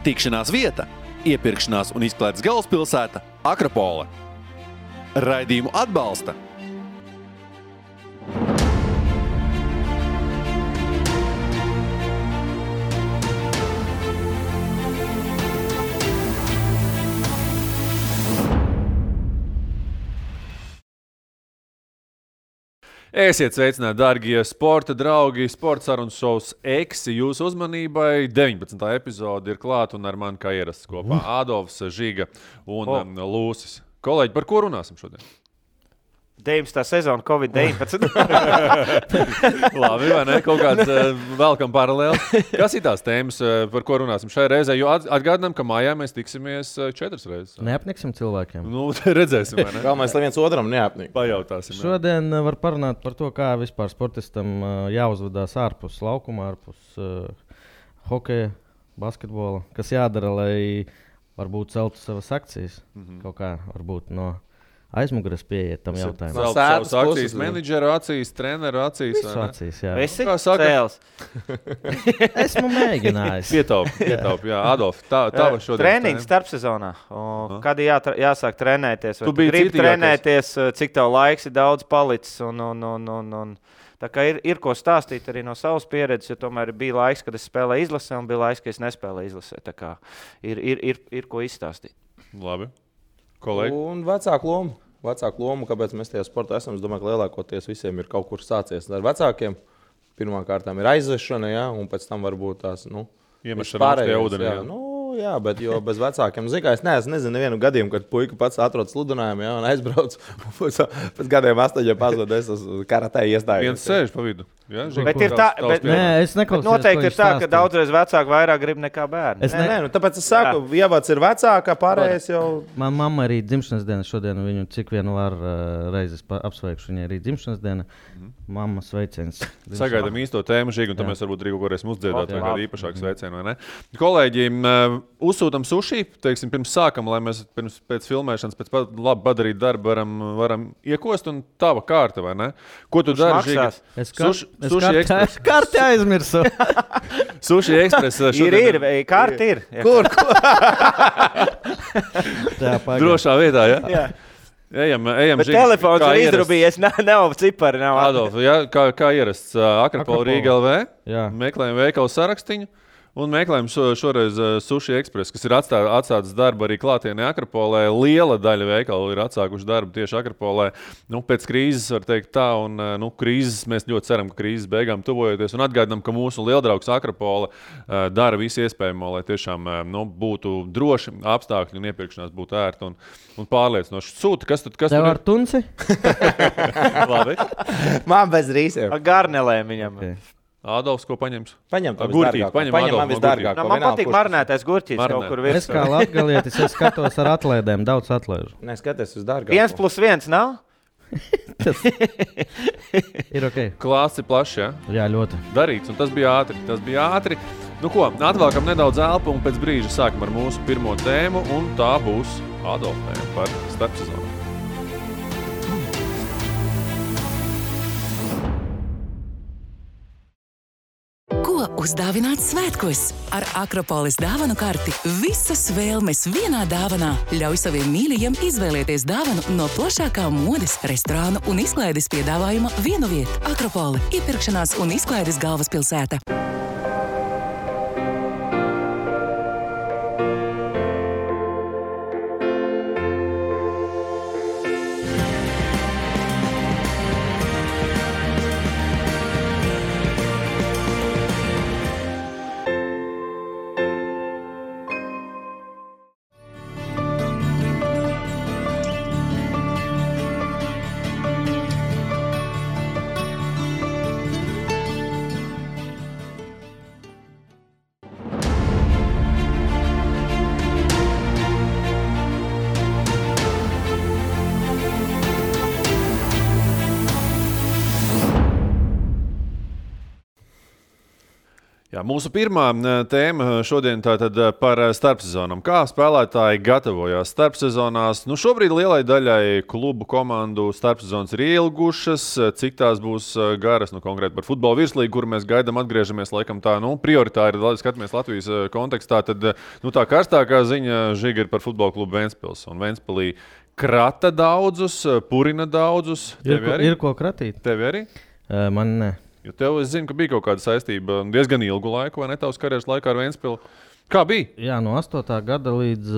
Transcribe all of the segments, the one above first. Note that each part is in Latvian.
Tikšanās vieta, iepirkšanās un izklaides galvaspilsēta Akropole. Raidījumu atbalsta Esiet sveicināti, dārgie sporta draugi, sporta sarunas šovs Eksi jūsu uzmanībai. 19. epizode ir klāta un ar mani kā ierasts kopā Ādolfs, Žiga un Lūsis. Kolēģi, par ko runāsim šodien? 19. sezona Covid-19. Labi, vai ne? Kaut kāds velkam paralēli. Kas ir tās tēmas, par ko runāsim šai reizē? Jo atgādinām, ka mājā mēs tiksimies 4 reizes. Neapniksim cilvēkiem. Nu, redzēsim, vai ne? Galvenais, lai viens otram neapnik. Pajautāsim. Šodien var parunāt par to, kā vispār sportistam jāuzvedās ārpus laukuma, ārpus hokeja, basketbola. Kas jādara, lai varbūt celtu savas akcijas. Kaut kā varbūt no aizmugures pieiet tam jautājumam. Savas akcijas, menedžera acīs, treneru acīs. Visu acīs, jā. Esi Kā saka? cēls. Esmu mēģinājis. Pietaup, jā. Adolf, tava šodien. Treniņš starpsezonā. Kad jāsāk trenēties? Tu Vai biji gribi citīgākais. trenēties, cik tev laiks ir daudz palicis? Un. Tā kā ir ko stāstīt arī no savas pieredzes, jo tomēr bija laiks, kad es spēlēju izlasē un bija laiks, kad es nespēlēju izlasē. Tā kā ir ko izstāstīt. Labi. Kolēģi. Un vecāku lomu, kāpēc mēs tajā sportā esam. Es domāju, ka lielākoties visiem ir kaut kur sācies ar vecākiem. Pirmkārt ir aizvešana, jā, un pēc tam varbūt tās, Iemešana augstā ūdenī, jā. Jā, bet jo bez vecākiem, es nezinu nevienu gadījumu, kad puika pats atrodas sludinājumā, jā, un aizbrauc, pēc gadiem 8 pazud, es uz karatē iestājos. Viens sēž pa vidu. Jā, Bet ir tā, Nē, es neklausījos, noteikti ko ir viņš tā, ka stāstīja. daudzreiz vecāki vairāk grib nekā bērni. Nē, tāpēc es saku, ievads ir vecāka, pārējais jau. Man mamma arī dzimšanas diena šodien, viņu cik vien var reizes apsveikšu, viņai arī dzimšanas diena. Mamma sveiciens. Sagaidām īsto tēmu, Žīgi, un tad mēs varbūt Rīgu varēsim uzdziedāt vai Jā. kādu īpašāku sveicienu, vai ne? Kolēģi, uzsūtam suši, teiksim, pirms sākam, lai mēs pēc filmēšanas, pēc labi padarīt darbu varam iekost, un tava kārta, vai ne? Ko tu dari, Žīgi? Sushi Express. Karti aizmirsu. Sushi Express Ir, kārti ir. Kur? Jā, pagaid. Drošā vietā, jā? Jā. Ejam, Bet Žigi. telefons Kā ir ierasts. izdrubījies, nav cipari, nav Adolf, jā, kā ierasts Akropola Rīga LV, Jā. meklējam veikalu sarakstiņu un meklējam šoreiz Sushi Express, kas ir atstāts darbu arī klātienē Akropolē. Liela daļa veikalu ir atsākuši darbu tieši Akropolē. Pēc krīzes var teikt tā, un krīzes mēs ļoti ceram, ka krīzes beigām tuvojoties, un atgādinām, ka mūsu lieldraugs Akropola dara visu iespējamo, lai tiešām būtu droši apstākļi un iepirkšanās būtu ērti un pārliecinoši. Sūta, kas Tev tur ar tunci? Labi. Man bez rīsiem. garnelēm viņam. Okay. Ādolfs, ko paņems? Paņem to Gurķīt, visdārgāko. paņem Paņem Adolfu man no visdārgāko. Man patīk marinētais gurķis Marinēt. kaut kur Es virsū. kā latgalietis, es skatos ar atlaidēm, daudz atlaižu. Nē, skaties uz dārgāko. 1+1 nav? Ir ok. Klāsts ir plašs, jā? Jā, ļoti. Darīts, un tas bija ātri. Nu ko, atvēlkam nedaudz elpu un pēc brīža sākam ar mūsu pirmo tēmu, un tā būs Adolfa tēma par starpsezonu. Ko uzdāvināt svētkos? Ar Akropoles dāvanu karti visas vēlmes vienā dāvanā. Ļauj saviem mīļajiem izvēlēties dāvanu no plašākā modes, restorānu un izklaides piedāvājuma vienu vietu. Akropole – iepirkšanās un izklaides galvaspilsēta. Jā, mūsu pirmā tēma šodien tātad par starpsezonām. Kā spēlētāji gatavojās starpsezonās? Nu, šobrīd lielai daļai klubu komandu starpsezonas ir ilgušas. Cik tās būs garas? Nu, konkrēti par futbola virslīgu, kur mēs gaidām, atgriežamies laikam tā, prioritāri, skatāmies Latvijas kontekstā. Tad tā karstākā ziņa Žiga ir par futbola klubu Ventspils. Un Ventspilī krata daudzus, purina daudzus. Ir ko kratīt? Tev arī? Man ne. Jo tev, es zinu, ka bija kaut kāda saistība diezgan ilgu laiku, vai ne tavas karjeras laikā ar Ventspilu. Kā bija? Jā, no 8. gada līdz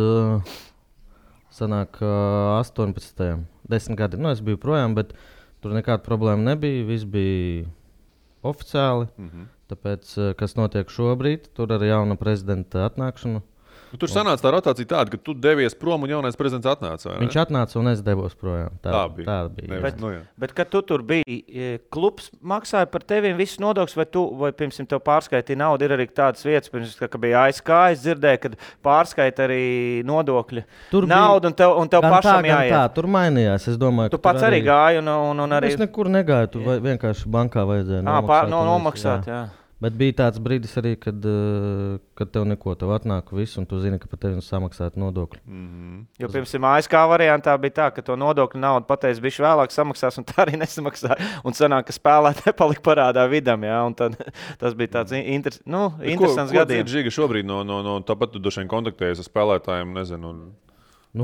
18. 10 gadi. Nu, es biju projām, bet tur nekāda problēma nebija. Viss bija oficiāli. Tāpēc, kas notiek šobrīd, tur ar jauna prezidenta atnākšanu. Tur sanāca tā rotācija tāda, ka tu devies prom un jaunais prezidents atnāca. Viņš atnāca un es devos projām. Tā bija. Bet kad tu tur biji, klubs maksāja par teviem visus nodokļus, vai pirms tev pārskaitīja naudu? Ir arī tādas vietas, pirms, ka bija ASK, es dzirdēju, kad pārskaita arī nodokļi. Tur naudu un tev pašam jāiet. Tā, tur mainījās. Es domāju, tu pats arī gāji un arī... Es nekur negāju, tur vienkārši bankā vajadzēja nomaksāt. Jā. Bet bija tāds brīdis arī, kad tev neko, tev atnāk viss, un tu zini, ka par tevi samaksāt nodokļu. Jo pirms ASK variantā bija tā, ka to nodokļu naudu pateicis bišķi vēlāk samaksās, un tā arī nesamaksāja. Un sanāk, ka spēlētāji palika parādā vidam, jā, un tad tas bija tāds interesants gadījums. Ko Žiga šobrīd tāpat tu došain kontaktējies ar spēlētājiem, nezinu,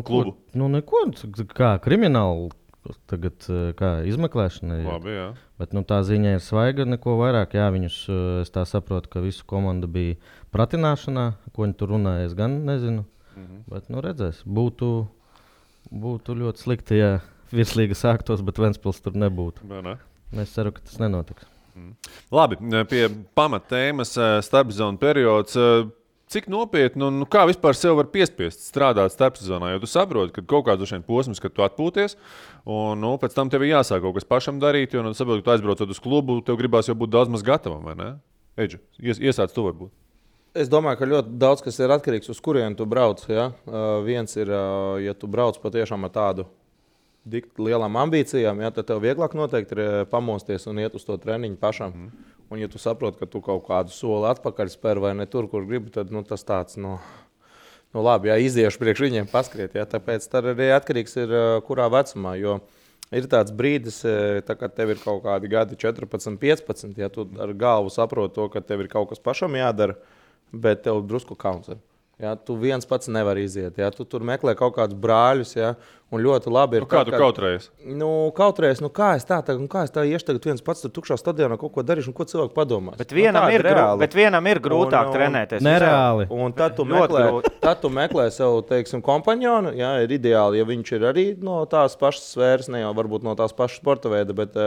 klubu? Neko, kā krimināli. Tagad kā izmeklēšana ir. Labi, jā. Bet tā ziņa ir svaiga, neko vairāk. Jā, viņus, es tā saprotu, ka visu komandu bija pratināšanā. Ko viņi tur runāja, es gan nezinu. Bet redzēs, būtu ļoti slikti, ja virslīga sāktos, bet Ventspils tur nebūtu. Ne? Es ceru, ka tas nenotiks. Labi, pie pamattēmas starpsezonu periods. Cik nopietni un kā vispār sev var piespiest strādāt starpsezonā? Jo tu saproti, ka kaut kāds posms, kad tu atpūties, un pēc tam tev ir jāsāk kaut kas pašam darīt, jo tu saproti, ka tu aizbraucot uz klubu, tev gribās jau būt daudz maz gatavam, vai ne? Eidži, iesāc tu varbūt. Es domāju, ka ļoti daudz kas ir atkarīgs uz kurienu tu brauc. Ja? Viens ir, ja tu brauc patiešām ar tādu lielām ambīcijām, ja, tad tev vieglāk noteikti ir pamosties un iet uz to treniņu pašam. Un, ja tu saproti, ka tu kaut kādu soli atpakaļ spēr vai ne tur, kur gribi, tad tas tāds, labi, jā, iziešu priekš viņiem paskriet. Jā, tāpēc tad arī atkarīgs ir, kurā vecumā. Jo ir tāds brīdis, tā, kad tev ir kaut kādi gadi 14, 15, ja tu ar galvu saproti to, ka tev ir kaut kas pašam jādara, bet tev drusku kauns ir. Ja, tu viens pats nevar iziet. Ja, tu tur meklē kaut kādus brāļus. Ja, un ļoti labi ir. Kā tu kautrējies? Kautrējies, kā es tā iešu tagad viens pats tur tukšā stadionā kaut ko darīšu, un ko cilvēki padomās. Bet vienam ir grūtāk trenēties. Nereāli. Un tad tu meklē sev, teiksim, kompanionu. Ja, ir ideāli, ja viņš ir arī no tās pašas sfēras, ne jau varbūt no tās pašas sporta veida, bet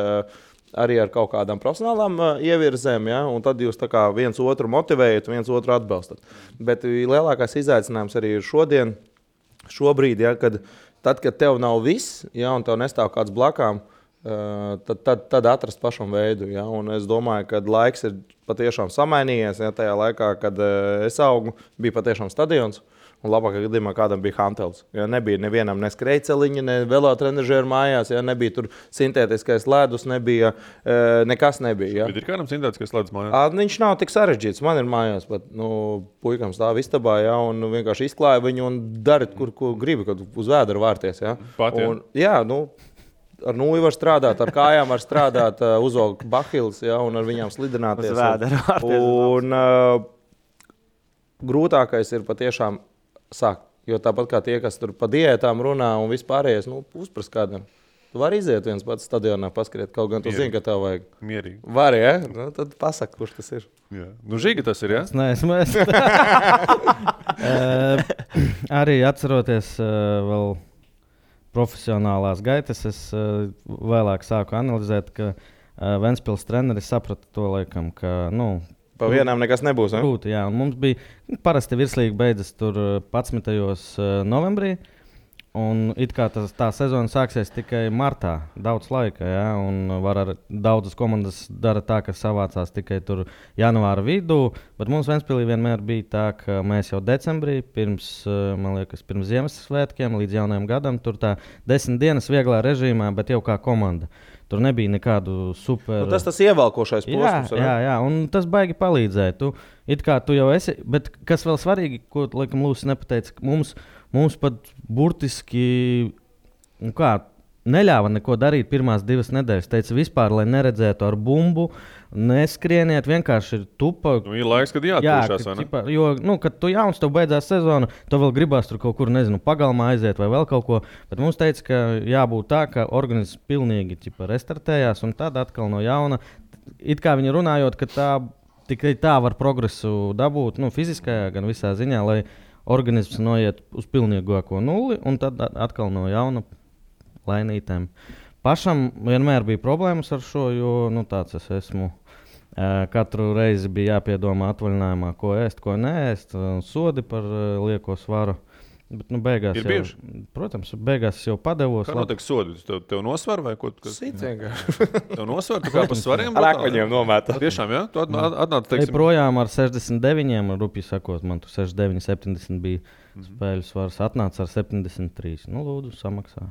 arī ar kaut kādām profesionālām ievirzēm, ja? Un tad jūs tā kā viens otru motivējat, viens otru atbalstat. Bet lielākais izaicinājums arī ir šobrīd, ja? Kad tev nav viss, ja? Un tev nestāv kāds blakām, tad atrast pašam veidu. Ja? Un es domāju, ka laiks ir patiešām samainījies. Ja? Tajā laikā, kad es augu, bija patiešām stadions. Un labākā gadījumā kādam bija hantels. Ja, nebija nevienam ne skrejceliņa, ne velotrenažieru mājās, ja, nebija tur sintētiskais ledus, nekas nebija. Ja. Bet ir kādam sintētiskais ledus mājās? Viņš nav tik sarežģīts. Man ir mājās, bet puikam stāv istabā, ja, un vienkārši izklāja viņu un dara, kur gribi, kad uz vēdera vārties. Ja. Pat, ja. Un, jā, ar nūju var strādāt, ar kājām var strādāt, uzaugt bahils, ja, un ar viņām slidināties. Uz vēdera vārties. Un grūtākais ir patiešām sākt. Jo tāpat kā tie, kas tur pa diētām runā un vispārējais, uzprast kādam. Tu vari iziet viens pats stadionā paskriet, kaut gan tu zini, ka tev vajag. Mierīgi. Vari, ja? Tad pasaka, kurš tas ir. Jā. Žiga tas ir, ja? Es neesmu. Arī atceroties vēl profesionālās gaitas, es vēlāk sāku analizēt, ka Ventspils treneris saprata to laikam, ka, pa vienām nekas nebūs. Grūti, jā. Un mums bija parasti virslīga beidzas tur 11. novembrī. Un it kā tā sezona sāksies tikai martā. Daudz laika, jā. Un daudzas komandas dara tā, ka savācās tikai tur janvāra vidū. Bet mums Ventspilī vienmēr bija tā, ka mēs jau decembrī, pirms Ziemassvētkiem līdz jaunajam gadam, tur tā 10 dienas vieglā režīmā, bet jau kā komanda. Tur nebija nekādu super. Nu, tas ievelkošais posms. Jā, un tas baigi palīdzēja. Tu jau esi, bet kas vēl svarīgi, ko laikam Lūsis nepateica, mums pat burtiski neļāva neko darīt pirmās 2 nedēļas. Teica vispār, lai neredzētu ar bumbu, neskrieniet, vienkārši ir tupa. Ir laiks, kad jāatpūšās, vai ne? Jo, kad tu jauns, tev beidzās sezona, tu vēl gribās tur kaut kur, pagalmā aiziet vai vēl kaut ko. Bet mums teica, ka jābūt tā, ka organisms pilnīgi restartējās un tad atkal no jauna. It kā viņi runājot, ka tikai tā var progresu dabūt, fiziskajā gan visā ziņā, lai organisms noiet uz pilnīgāko nulli un tad atkal no jauna lainītēm. Pašam vienmēr bija problēmas ar šo, jo tāds es esmu. Katru reizi bija jāpiedomā atvaļinājumā, ko ēst, ko neēst, sodi par lieko svaru. Bet beigās jau, protams, beigās jau padevos. Kā notiek sodi? Tev nosvar vai ko? Sit vienkārši. Tev nosvar, tu kā pa svariem? Ar akmeņiem nomēta. Tiešām, jā? Tu atnāc, teiksim. Projām ar 69, rupi sakot, man tu 69, 70 bija spēļu svars. Atnāc ar 73. Lūdzu, samaksā.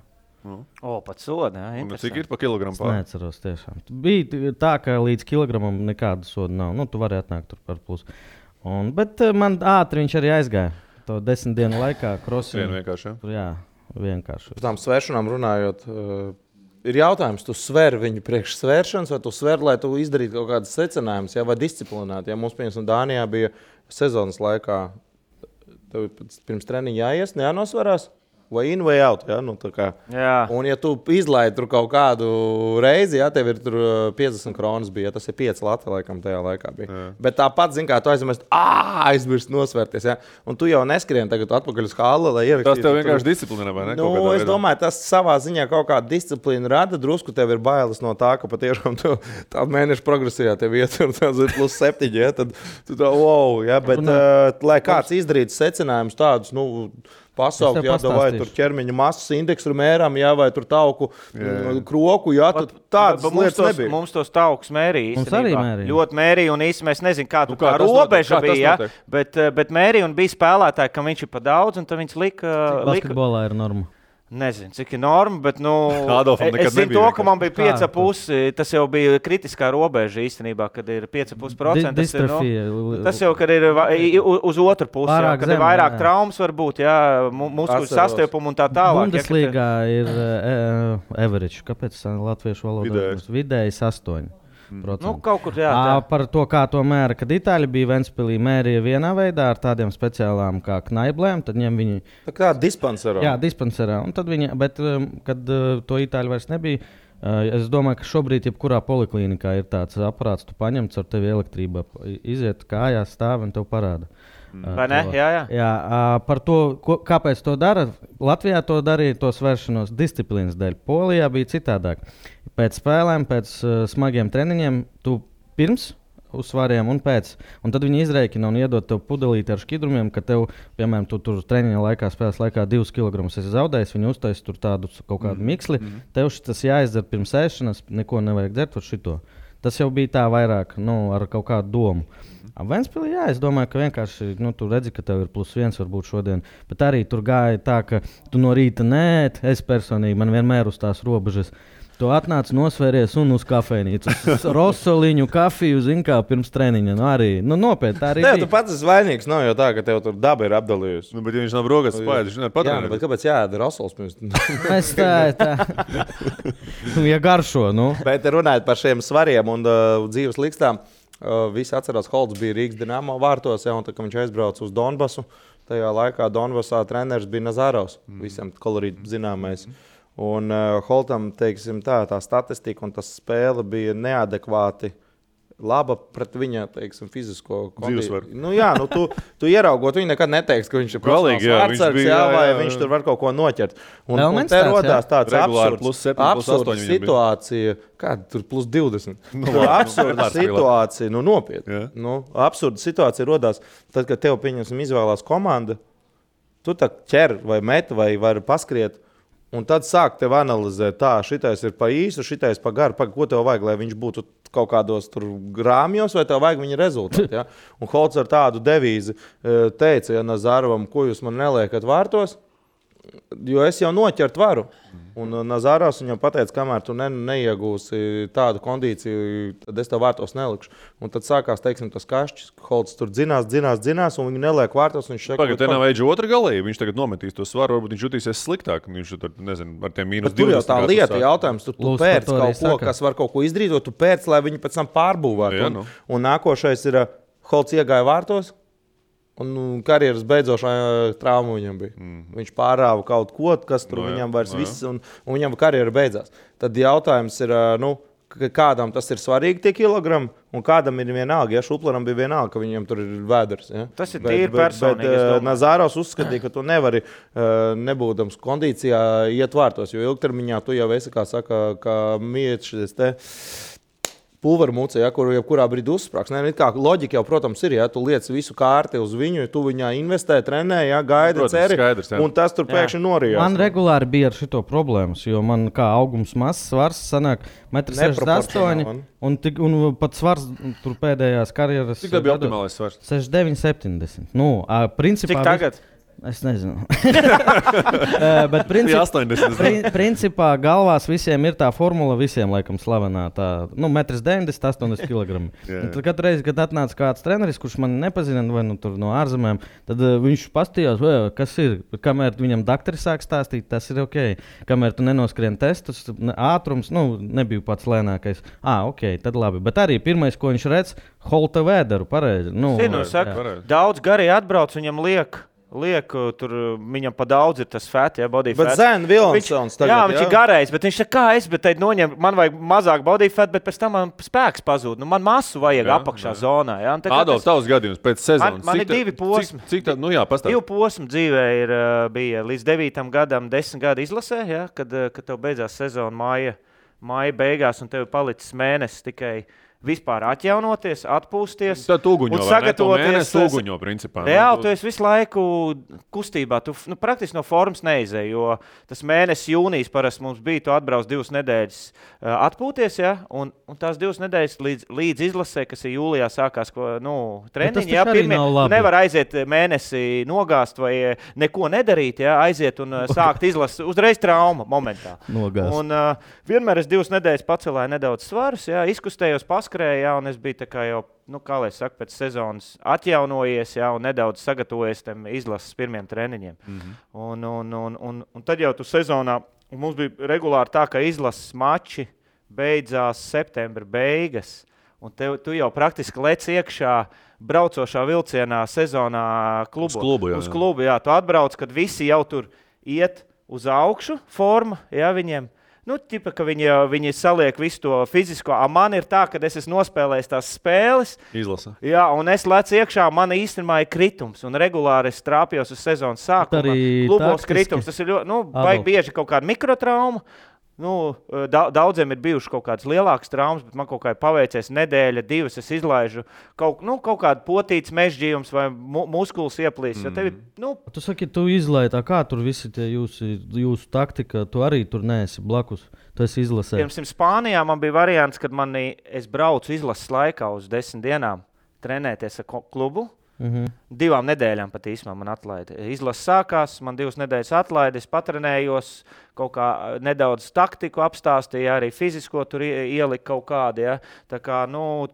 Pat soda, jā. Un cik ir pa kilogramu pār? Es neatceros tiešām. Bija tā, ka līdz kilogramam nekāda soda nav. Tu vari atnākt tur par plus. Bet man ātri viņš arī aizgāja. To 10 dienu laikā krosinu. Vienkārši, jā, vienkārši. Par tām svēršanām runājot, ir jautājums, tu sver viņu priekš svēršanas, vai tu sver, lai tu izdarītu kaut kādas secinājumus, vai disciplinēt. Ja mums, piemēram, Dānijā bija sezonas laikā, tev pirms treniņa jāies, jānosvarās. Vai in, vai out. Ja? Un, ja tu izlaidi tur kaut kādu reizi, tev ir 50 kronas, bija, tas ir 5 lati, laikam, tajā laikā bija. Jā. Bet tāpat, kā tu aizmirst nosvērties. Ja? Un tu jau neskrien tagad atpakaļ uz halli, lai ierakstītu. Tas tev vienkārši disciplina, vai ne? Es domāju, tas savā ziņā kaut kādu disciplīnu rada. Drusku tev ir bailes no tā, ka patiešām tā mēneša progresijā tev ietur plus 7. Ja? Tad tu tā, wow, ja? Bet lai kāds izdarītu secinājumus tādus, pasaukt, vai tur ķermeņa masas indeksu mēram, vai tur tauku kroku, tādas lietas nebija. Mums tos taukus mērīja. Mums arī mērīja. Ļoti mērīja, un īsti mēs nezinām, kā tā robeža bija, bet mērīja un bija spēlētāji, kam viņš ir pa daudz, un tad viņš lika... Basketbolā ir norma. Nezinu, cik ir norma, bet es zinu to, ka man bija 5,5. Tas jau bija kritiskā robeža īstenībā, kad ir 5,5%. Tas jau, kad ir uz otru pusi, kad ir vairāk traumas varbūt, muskuļu sastiepuma un tā tālāk. Bundeslīgā ir average, kāpēc latviešu valodā vidējs 8%. Kaut kur par to, kā to mēra, kad Itāļi bija Ventspilī, mērīja vienā veidā ar tādiem speciālām kā knaiblēm, tad ņem viņi... Tā kā dispanserā. Jā, dispanserā. Un tad viņi, bet, kad to Itāļi vairs nebija, es domāju, ka šobrīd jebkurā poliklīnikā ir tāds aparāts, tu paņem caur tevi elektrība, iziet kājās, stāv un tev parāda. Vai ne? Jā. Par to, kāpēc to dara, Latvijā to darīja, to svēršanos disciplīnas dēļ. Polijā bija citādāk. Pēc spēlēm, pēc smagiem treniņiem, tu pirms uz svariem un pēc. Un tad viņi izreikina un iedod tev pudelīti ar šķidrumiem, ka tev, piemēram, tu tur treniņa laikā, spēles laikā 2 kg esi zaudējis, viņi uztais tur tādu kaut kādu miksli. Tev tas jāizdara pirms ēšanas, neko nevajag dzert ar šito. Tas jau bija tā vairāk, ar kaut kādu domu. Ventspilī, es domāju, ka vienkārši tu redzi, ka tev ir +1 varbūt šodien, bet arī tur gāja tā, ka tu no rīta es personīgi, man vienmēr uz tās robežas. Tu atnāc, nosvēries un uz kafejnīcu. Rosoliņu, kafiju, kā pirms treniņa. Arī nopietni. Tā arī bija. Tu pats esi vainīgs, nav jau tā, ka tev tur daba ir apdalījusi. Bet ja viņš nav brogas spēļ, viņš nevar patrenēt. Jā, bet kāpēc jāēda rosols pirms? Es tā. Ja garšo, Bet runājot par šiem svariem un dzīves likstām, visi atcerās, Holts bija Rīgas Dinamo vārtos, un tā, kad viņš aizbrauca uz Donbasu, tajā laikā Donbasā treneris bija Nazarovs, visam kolorīt zināmais. Un Holtam, teiksim, tā statistika un tas spēle bija neadekvāti laba pret viņa, teiksim, fizisko dzīvesvaru. Tu ieraugot, viņi nekad neteiks, ka viņš ir profesionāls vārdsargs, vai viņš tur var kaut ko noķert. Un te rodās tāds absurds situācija, kāda tur +20. Absurda situācija, nopietni. Absurda situācija rodās, tad, kad tev, pieņemsim, izvēlās komanda, tu tā ķer vai met vai vari paskriet, un tad sāk tev analizēt, šitais ir pa īsu, šitais pa garu, ko tev vajag, lai viņš būtu kaut kādos tur grāmjos, vai tev vajag viņa rezultātu. Ja? Un Holts ar tādu devīzi teica, Nazarovam, ko jūs man neliekat vārtos, jo es jau noķert varu. Un Nazāros viņam pateica, kamēr tu neiegūsi tādu kondīciju, tad es tev vārtos nelikšu. Un tad sākās, teiksim, tas kašķis. Holds tur dzinās, un viņi neliek vārtos. Pagaid, te nav eidži otra galība. Viņš tagad nometīs to svaru, varbūt viņš jutīsies sliktāk. Viņš tur, nezinu, ar tiem -20. Tur jau tā lieta jautājums. Tu pērc kaut ko, kas var kaut ko izdarīt, tu pērc, lai viņi pēc tam pārbūvētu. Un nākošais ir Holds iegāja vārtos. Un karjeras beidzošā trauma viņam bija. Viņš pārāva kaut ko, kas tur viņam vairs viss, un viņam karjera beidzās. Tad jautājums ir, kādam tas ir svarīgi tie kilogrami, un kādam ir vienalga. Ja Šuplaram bija vienalga, ka viņam tur ir vēders. Ja? Tas ir tīri personīgi. Nazāros uzskatīja, ka tu nevari, nebūdams kondīcijā, iet vārtos, jo ilgtermiņā tu jau esi, kā saka, kā mietis te. Pulveru mucē, ja, kur jebkurā brīdī uzsprāgs. Loģika jau, protams, ir, ja tu liec visu kārti uz viņu, tu viņā investē, trenē, ja, gaida, ceri, un tas tur pēkšņi norijās. Man regulāri bija ar šito problēmas, jo man kā augums mazs, svars sanāk 1,68 m, un pat svars tur pēdējās karjeras. Cik tā bija optimālais svars? 69,70. Nu, principā... Cik tagad? Es nezinu. Bet principā galvās visiem ir tā formula, visiem laikam slavenā. Tā, 1,90 m, 80 kg. Tad katru reizi, kad atnāca kāds treneris, kurš man nepazina, vai no ārzemēm, tad viņš pastījās, kas ir. Kamēr viņam doktori sāk stāstīt, tas ir ok. Kamēr tu nenoskrien testus, ātrums, nebija pats lēnākais. Ok, tad labi. Bet arī pirmais, ko viņš redz, Holta vēderu, pareizi. Daudz garīgi atbrauc, viņam liek, tur viņam pa daudz ir tas fats, ja, body fat. Bet Zēna Vilonsons tagad, jā, viņš ir garais, bet viņš saka, kā es, bet noņem, man vajag mazāk body fat, bet pēc tam man spēks pazūd. Man masu vajag apakšā zonā. Ja. Adolf, tavs gadījums pēc sezonas. Man ir 2 posmi. Cik tā, pastāst. 2 posmi dzīvē bija līdz 9. gadam, 10 gadu izlasē, ja, kad tev beidzās sezona māja beigās un tev palicis mēnesis tikai vispār atjaunoties, atpūsties. Tad uguņo, sagatavoties. Uguņo, principā. Reāli, tu esi visu laiku kustībā. Tu praktiski no formas neizēji, jo tas mēnesis jūnijas parasti mums bija, tu atbrauc 2 nedēļas atpūties, ja, un tās 2 nedēļas līdz izlasē, kas ir jūlijā sākās treniņi, ja, nevar aiziet mēnesi nogāzt vai neko nedarīt, ja, aiziet un sākt izlasi uzreiz trauma momentā. Nogāzt. Un vienmēr es 2 nedēļas pacelēju nedaudz svarus, ja, izkustējos, paskrēju, un es biju tā kā jau, kā lai saka, pēc sezonas atjaunojies, ja, un nedaudz sagatavojies tam izlases pirmiem treniņiem. Un tad jau tu sezonā, mums bija regulāri tā, ka izlases mači beidzās septembra beigas, un tu jau praktiski lec iekšā braucošā vilcienā sezonā uz klubu. Jā, tu atbrauc, kad visi jau tur iet uz augšu forma, ja, viņiem. Ķipa, ka viņi saliek visu to fizisko. Man ir tā, ka es esmu nospēlējis tās spēles. Izlasa. Jā, un es lecu iekšā, man īstenībā ir kritums. Un regulāri es trāpjos uz sezonas sākuma. Klubos kritums. Tas ir ļoti, vajag bieži kaut kāda mikrotrauma. Daudziem ir bijušas kaut kādas lielākas traumas, bet man kaut kā ir paveicies nedēļa, 2, es izlaižu kaut kādu potītas mežģījums vai muskulis ieplīs. Tu saki, tu izlaiži tā, kā tur visi tie jūsu taktika, tu arī tur neesi blakus, tu esi izlasē. Pirms Spānijā man bija variants, kad es braucu izlases laikā uz 10 dienām trenēties ar klubu. 2 nedēļām pat īsumā man atlaida. Izlase sākās, man 2 nedēļas atlaida, es patrenējos, kaut kā nedaudz taktiku apstāstīja, arī fizisko tur ielika kaut kādi. Ja. Tā kā,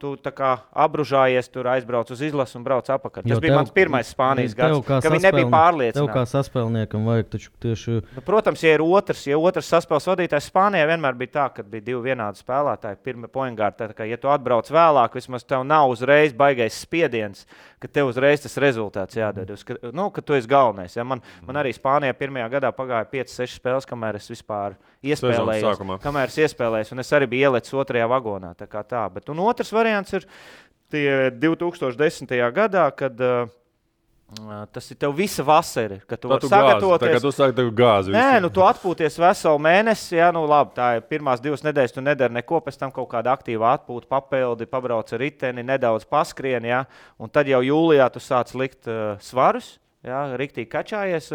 tu tā kā apbružājies, tur aizbrauc uz izlasi un brauc apakaļ. Tas bija mans pirmais Spānijas gads, ka viņi nebija pārliecināti. Tev kā saspēlniekam vajag taču tieši... Protams, ja otrs saspēles vadītājs Spānijā vienmēr bija tā, kad bija 2 vienādi spēlētāji, pirmie pointgārdi, tā kā, ja tu atbrauc vēlāk, vismaz tev nav uzreiz baigais spiediens, ka tev uzreiz tas rezultāts jādod, ka tu esi galvenais. Ja. Man arī Spānijā pirmajā gadā pagāja 5-6 spēles, kamēr es vispār iespēlējos, un es arī biju ielicis 2. vagonā. Tā kā tā. Bet, otrs variants ir tie 2010. gadā, kad tas ir tev visa vasara, kad tu vari sagatavoties. Tā kā tu sāki tev gāzi. Nē, tu atpūties veselu mēnesi, ja, labi, tā ir pirmās 2 nedēļas, tu nedari neko, pēc tam kaut kāda aktīva atpūta, papildi, pabrauc ar riteni, nedaudz paskrien, ja, un tad jau jūlijā tu sāc likt svarus, ja, riktīgi kačājies,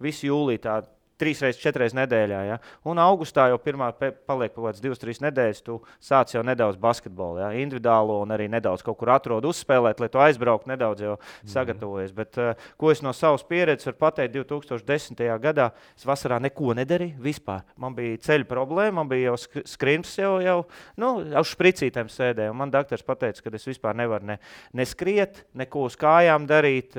visu jūliju tā 3-4 nedēļā. Ja? Un augustā jau pirmā paliek kaut kāds 2-3 nedēļas, tu sāc jau nedaudz basketbolu, ja? Individuālo un arī nedaudz kaut kur atrod uzspēlēt, lai tu aizbrauktu nedaudz jau sagatavojies. Bet ko es no savas pieredzes varu pateikt, 2010. gadā es vasarā neko nedarīju vispār. Man bija ceļu problēma, man bija jau skrimps jau uz špricītēm sēdēju. Man doktors pateica, ka es vispār nevaru ne skriet, neko uz kājām darīt,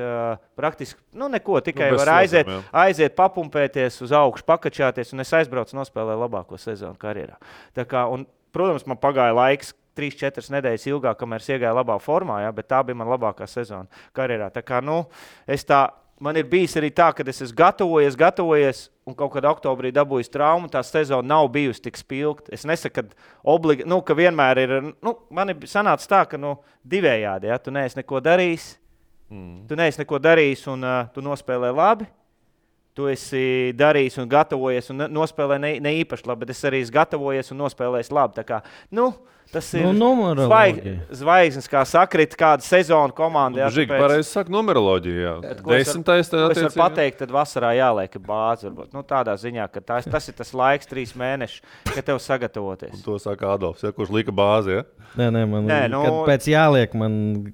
praktiski, neko, tikai var aiziet papumpēties uz augšu, pakačāties, un es aizbraucu nospēlēju labāko sezonu karjerā. Tā kā, un, protams, man pagāja laiks 3-4 nedēļas ilgāk, kamēr es iegāju labā formā, ja, bet tā bija man labākā sezona karjerā. Tā kā, man ir bijis arī tā, ka es esmu gatavojies, un kaut kad oktobrī dabūjis traumu, tā sezona nav bijusi tik spilgta. Es nesaku, ka vienmēr ir, man ir sanācis tā, ka divējādi, ja, tu neesi neko darījis, un tu nospēlē labi, tu esi darījis un gatavojies un nospēlē ne īpaši labi, bet es arī esmu gatavojies un nospēlējis labi. Tā kā, tas ir zvaigznes, kā sakrit, kāda sezona komanda. Žīgi, pareizi saka numeroloģija, jā. 10. Es varu pateikt, tad vasarā jāliek bāzi, varbūt. Tādā ziņā, ka tas ir tas laiks 3 mēneši, kad tev sagatavoties. Un to saka Adolfs, ja, kurš lika bāzi, ja? Kad pēc jāliek man...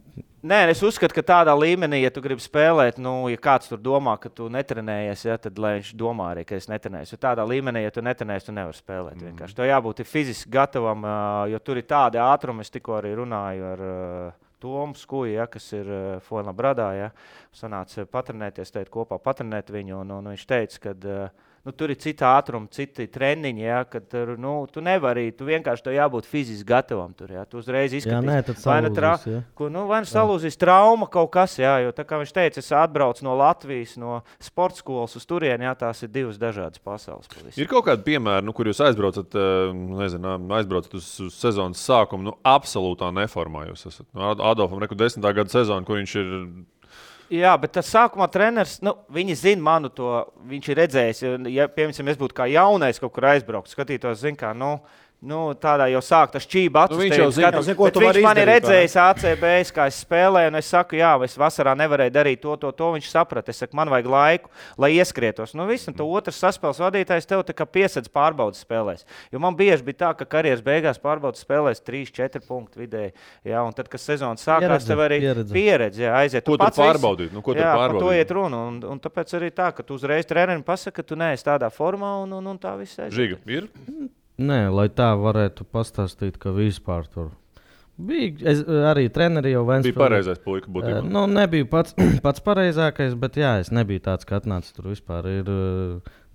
Nē, es uzskatu, ka tādā līmenī, ja tu gribi spēlēt, ja kāds tur domā, ka tu netrenējies, ja, tad lai viņš domā arī, ka es netrenējies. Jo tādā līmenī, ja tu netrenējies, tu nevari spēlēt vienkārši. Tev jābūt fiziski gatavam, jo tur ir tādi ātrumi. Es tikko arī runāju ar Tomu Skuju, ja, kas ir Fuenlabradā. Ja. Sanāca patrenēties, kopā patrenēt viņu, un viņš teica, ka... tur ir cita ātruma, citi treniņi, ja, kad tu nevari, tu vienkārši tev jābūt fiziski gatavam tur, ja, tu uzreiz izskatīsi. Vai nu salūzīs trauma kaut kas, ja, jo tā kā viņš teica, es atbraucu no Latvijas, no sporta skolas uz turieni, ja, tās ir 2 dažādas pasaules. Pavisam. Ir kaut kādi piemēri, kur jūs aizbraucat uz sezonas sākumu, absolūtā neformā jūs esat. Adolfam 10. gada sezona, kur viņš ir... Jā, bet tas sākumā treneris, viņi zina manu to, viņš ir redzējis, ja, piemēram, es būtu kā jaunais kaut kur aizbraukt, skatītos, kā, tādā jau sāk tas čība viņš jau zina, viņš man ir redzējis ACB, kā es spēlēju, un es saku, jā, es vasarā nevarēju darīt to, viņš saprata. Es saku, man vajag laiku, lai ieskrietos. Viss, un tu otrs saspēles vadītājs tev tā kā piesedz pārbaudas spēlēs. Jo man bieži bija tā, ka karjeras beigās pārbaudas spēlēs 3-4 punktu vidēji. Jā, un tad, kad sezona sākās, tev arī pieredze, jā, aiziet. Ko tu pārbaudīt? Ko tu pārbaudīt? To iet runa, un tāpēc arī tā, ka tu uzreiz trenerim pasaka, ka tu neesi tādā formā, un tā viss aiziet. Žiga, ir? Nē, lai tā varētu pastāstīt, ka vispār tur bija. Arī treneri jau Ventspilī. Bija pareizais puika būtībā. Nebija pats pareizākais, bet jā, es nebiju tāds, ka atnācis tur vispār. Ir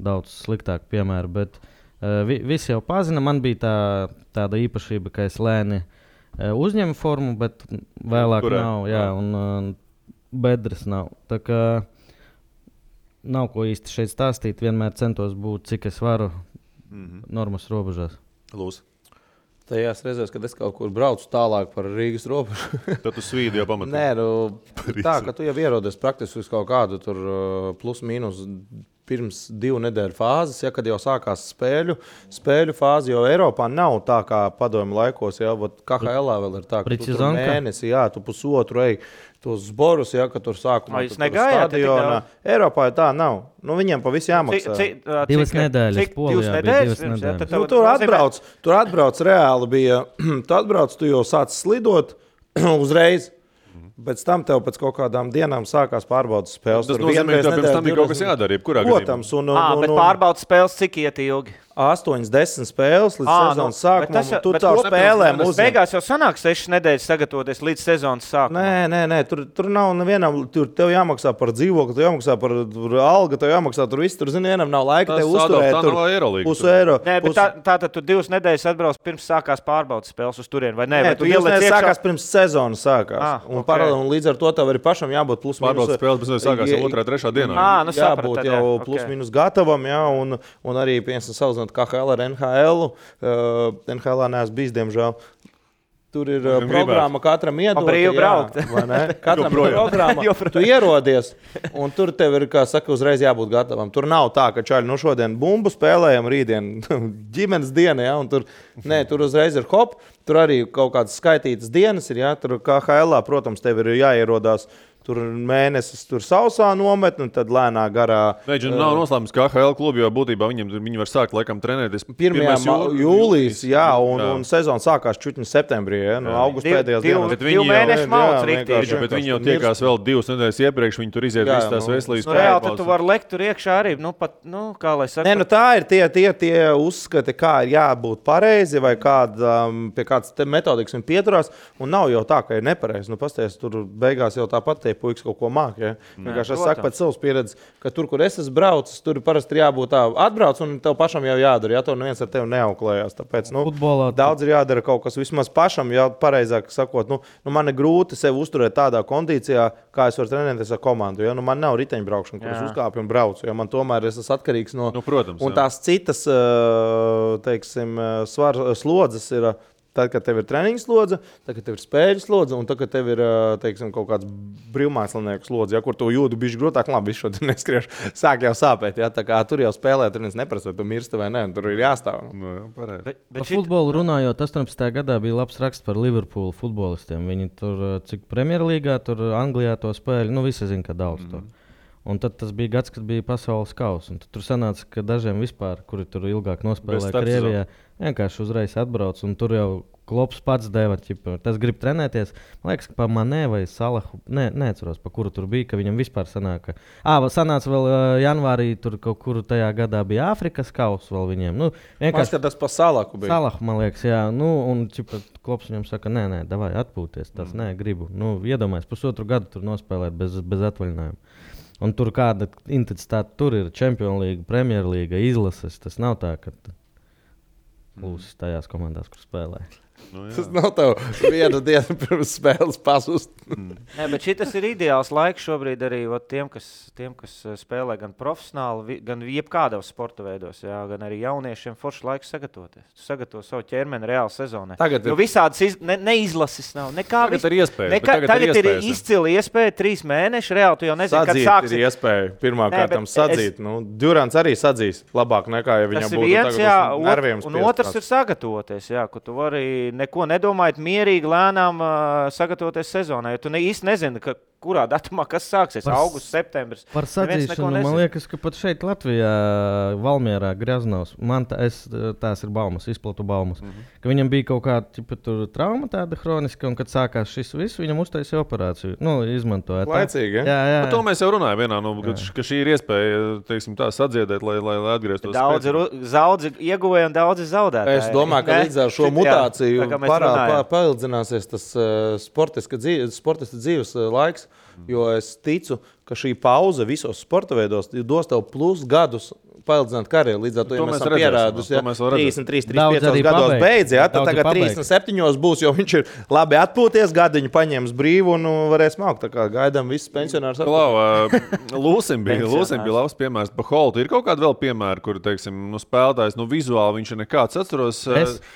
daudz sliktāk piemēru, bet visi jau pazina. Man bija tāda īpašība, ka es lēni uzņemu formu, bet vēlāk nav. Jā, un bedres nav. Tā kā nav ko īsti šeit stāstīt. Vienmēr centos būt, cik es varu. Normas robežās. Lūs. Tajās reizēs, kad es kaut kur braucu tālāk par Rīgas robežu. Tad tu svīdi jau pamatā. Nē, tā, ka tu jau ierodies praktiski uz kaut kādu tur plus mīnus pirms 2 nedēļu fāzes, ja, kad jau sākās spēļu fāzi, jo Eiropā nav tā kā padomju laikos, ja, KHL vēl ir tā, ka tu tur mēnesi, jā, tu pusotru ej tos zborus, ja, ka tur sākumā tu stadionā. Eiropā tā nav. Viņiem pa visu jāmaksā. 2 nedēļas Polijā bija 2 nedēļas. Tur atbrauc reāli bija, tu jau sāc slidot uzreiz. Pēc tam tev pēc kaut kādām dienām sākās pārbaudas spēles. Tas nozīmē, ka pirms tam bija kaut kas jādara, jebkurā gadījumā. Protams. Bet pārbaudas spēles cik iet ilgi? 8-10 spēles līdz sezonas sākumam. Tu tā spēlēm uzņem. Beigās jau sanāk 6 nedēļas sagatavoties līdz sezonas sākumam. Nē. Tur nav nevienam. Tur tev jāmaksā par dzīvokli, tev jāmaksā par algu, tev jāmaksā tur viss. Tur, zini, vienam nav laika tev uzturēt. Tur eiro. Nē, bet tātad tu 2 nedēļas atbrauc pirms sākās pārbaudas spēles uz turieni, vai ne? Nē, tu 2 nedēļas sākās pirms sezonas sākās. Un līdz ar to tev arī pašam jābūt plus mīnus. Pārbaudas spēles, bet sākās jau 2.3. dienā. Jābūt jau plus mīnus gatavam, jā, un arī, piemēram, salīdzinot KHL ar NHL. NHL neesmu bijis, diemžēl. Tur ir programma katram iedot. Brīvi braukt. Katram programma. Tu ierodies, un tur tev ir, kā saka, uzreiz jābūt gatavam. Tur nav tā, ka čaļi, šodien bumbu spēlējam, rītdien ģimenes diena, ja, un tur uzreiz ir hop. Tur arī kaut kādas skaitītas dienas ir, ja, tur KHL, protams, tev ir jāierodās tur mēnesis tur sausā nometni, un tad lēnā garā. Veģi nav noslēpums, ka AHL klubi jau būtībā viņi var sākt laikam trenēties 1. jūlijas, jā, un sezona sākās čutņi septembrī, no augusta pēdējās dienas. Divu mēnešu malts riktīgi. Bet viņi jau tiekās vēl 2 nedēļas iepriekš, viņi tur iziet visas tās veselības reāli, tad tu vari lekt tur iekšā arī, kā lai saka. Tā ir tie uzskati, kā ir jābūt pareizi, vai pie kādas metodikas viņi pieturās, un nav jau tā, ka ir nepareizi. Pasties, tur beigās jau tāpat tie puikas kaut ko māk. Ja? Vienkārši es saku pēc savas pieredzes, ka tur, kur es esmu braucis, tur parasti ir jābūt tā atbrauc, un tev pašam jau jādara. Ja? Tev neviens ar tevi neauklējās. Tāpēc daudz ir jādara kaut kas vismaz pašam, ja pareizāk sakot. Man ir grūti sevi uzturēt tādā kondīcijā, kā es varu trenēties ar komandu. Ja? Man nav riteņbraukšana, kur es uzkāpju un braucu. Ja? Man tomēr es esmu atkarīgs no... protams, un tās citas, teiksim, slodzes ir... Tad, kad tev ir treniņu slodze, tad, kad tev ir spēļu slodze, un tad, kad tev ir teiksim, kaut kāds brīvmākslinieku slodze, ja, kur tu jūti bišķi grūtāk, labi, visu šodien neskriešu, sāk jau sāpēt. Ja, tā kā tur jau spēlē, tur neviens neprasa, vai tu mirsti vai ne, tur ir jāstāv. Par futbolu runājot, 18. gadā bija labs raksts par Liverpoolu futbolistiem. Viņi tur, cik Premjerlīgā, tur Anglijā to spēļu, visi zina, ka daudz to. Un tad tas bija gads, kad bija pasaules kausa. Tur sanāca, ka dažiem vispār, kuri tur ilgāk nospēlēja Krievijā, vienkārši uzreiz atbrauc. Un tur jau Klops pats deva, tas grib trenēties. Man liekas, ka pa Manē vai Salahu, neatceros, pa kuru tur bija, ka viņam vispār sanāca. Sanāca vēl janvārī, tur kaut kur tajā gadā bija Āfrikas kausa vēl viņiem. Vienkārši tas pa Salahu bija. Salahu, man liekas, jā. Un Klops viņam saka, nē, davai atpūties, tas gribu. Iedomājies, 1,5 gadu tur nospēlēt bez atvaļinājuma. Un tur kāda intensitāte tur ir Champions League, Premjerlīga, izlases. Tas nav tā, ka lūsis tajās komandās, kur spēlē. Tas nav tev vienu dienu pirms spēles pazust. Nē, bet šitas ir ideāls laiks šobrīd arī tiem, kas spēlē gan profesionāli, gan jebkādos sporta veidos, jā, gan arī jauniešiem forši laiks sagatavoties. Tu sagatavo savu ķermeni reāli sezonai. Visādas neizlases nav. Tagad ir iespēja. Tagad ir izcili iespēja 3 mēneši. Reāli tu jau nezini, kad sāks. Sadzīt ir iespēja pirmā kārtam sadzīt. Durants arī sadzīs labāk nekā, ja viņam būtu viens, tagad uz nerviem spiest. Un otrs ir sagatavoties, jā, ka tu vari neko nedomājot, mierīgi, lēnām sagatavoties sezonai. Jo tu īsti nezini, kurā datumā kas sāksies. Augusts, septembris. Par sadzīšanu man liekas, ka pat šeit Latvijā, Valmierā, Greznovs, tās ir baumas, izplatu baumas, ka viņam bija kaut kāda trauma tāda hroniska, un kad sākās šis viss, viņam uztaisīja operāciju. Izmantoja. Laicīgi, ja? Jā. To mēs jau runājam vienā, ka šī ir iespēja, teiksim, tā sadziedēt, lai atgrieztos. Daudzi ieguvēja un daudzi zaudētāji. Es domāju, ka līdz ar šo mutāciju paildzināsies tas sportista dzīves laiks, jo es ticu, ka šī pauze visos sporta veidos dos tev plus gadus paildzināt karjeru. Līdz ar to, ja mēs esam pierādusi, 33, 35 gados beidz, ja, tad tagad 37 būs, jo viņš ir labi atpūties, gadiņu paņēmis brīvu un varēs mākt. Tā kā gaidām visus pensionārus. Lūsim bija labs piemērs. Pa Holtu ir kaut kāda vēl piemēra, kur, teiksim, spēlētājs, vizuāli viņš ir nekāds. Atceros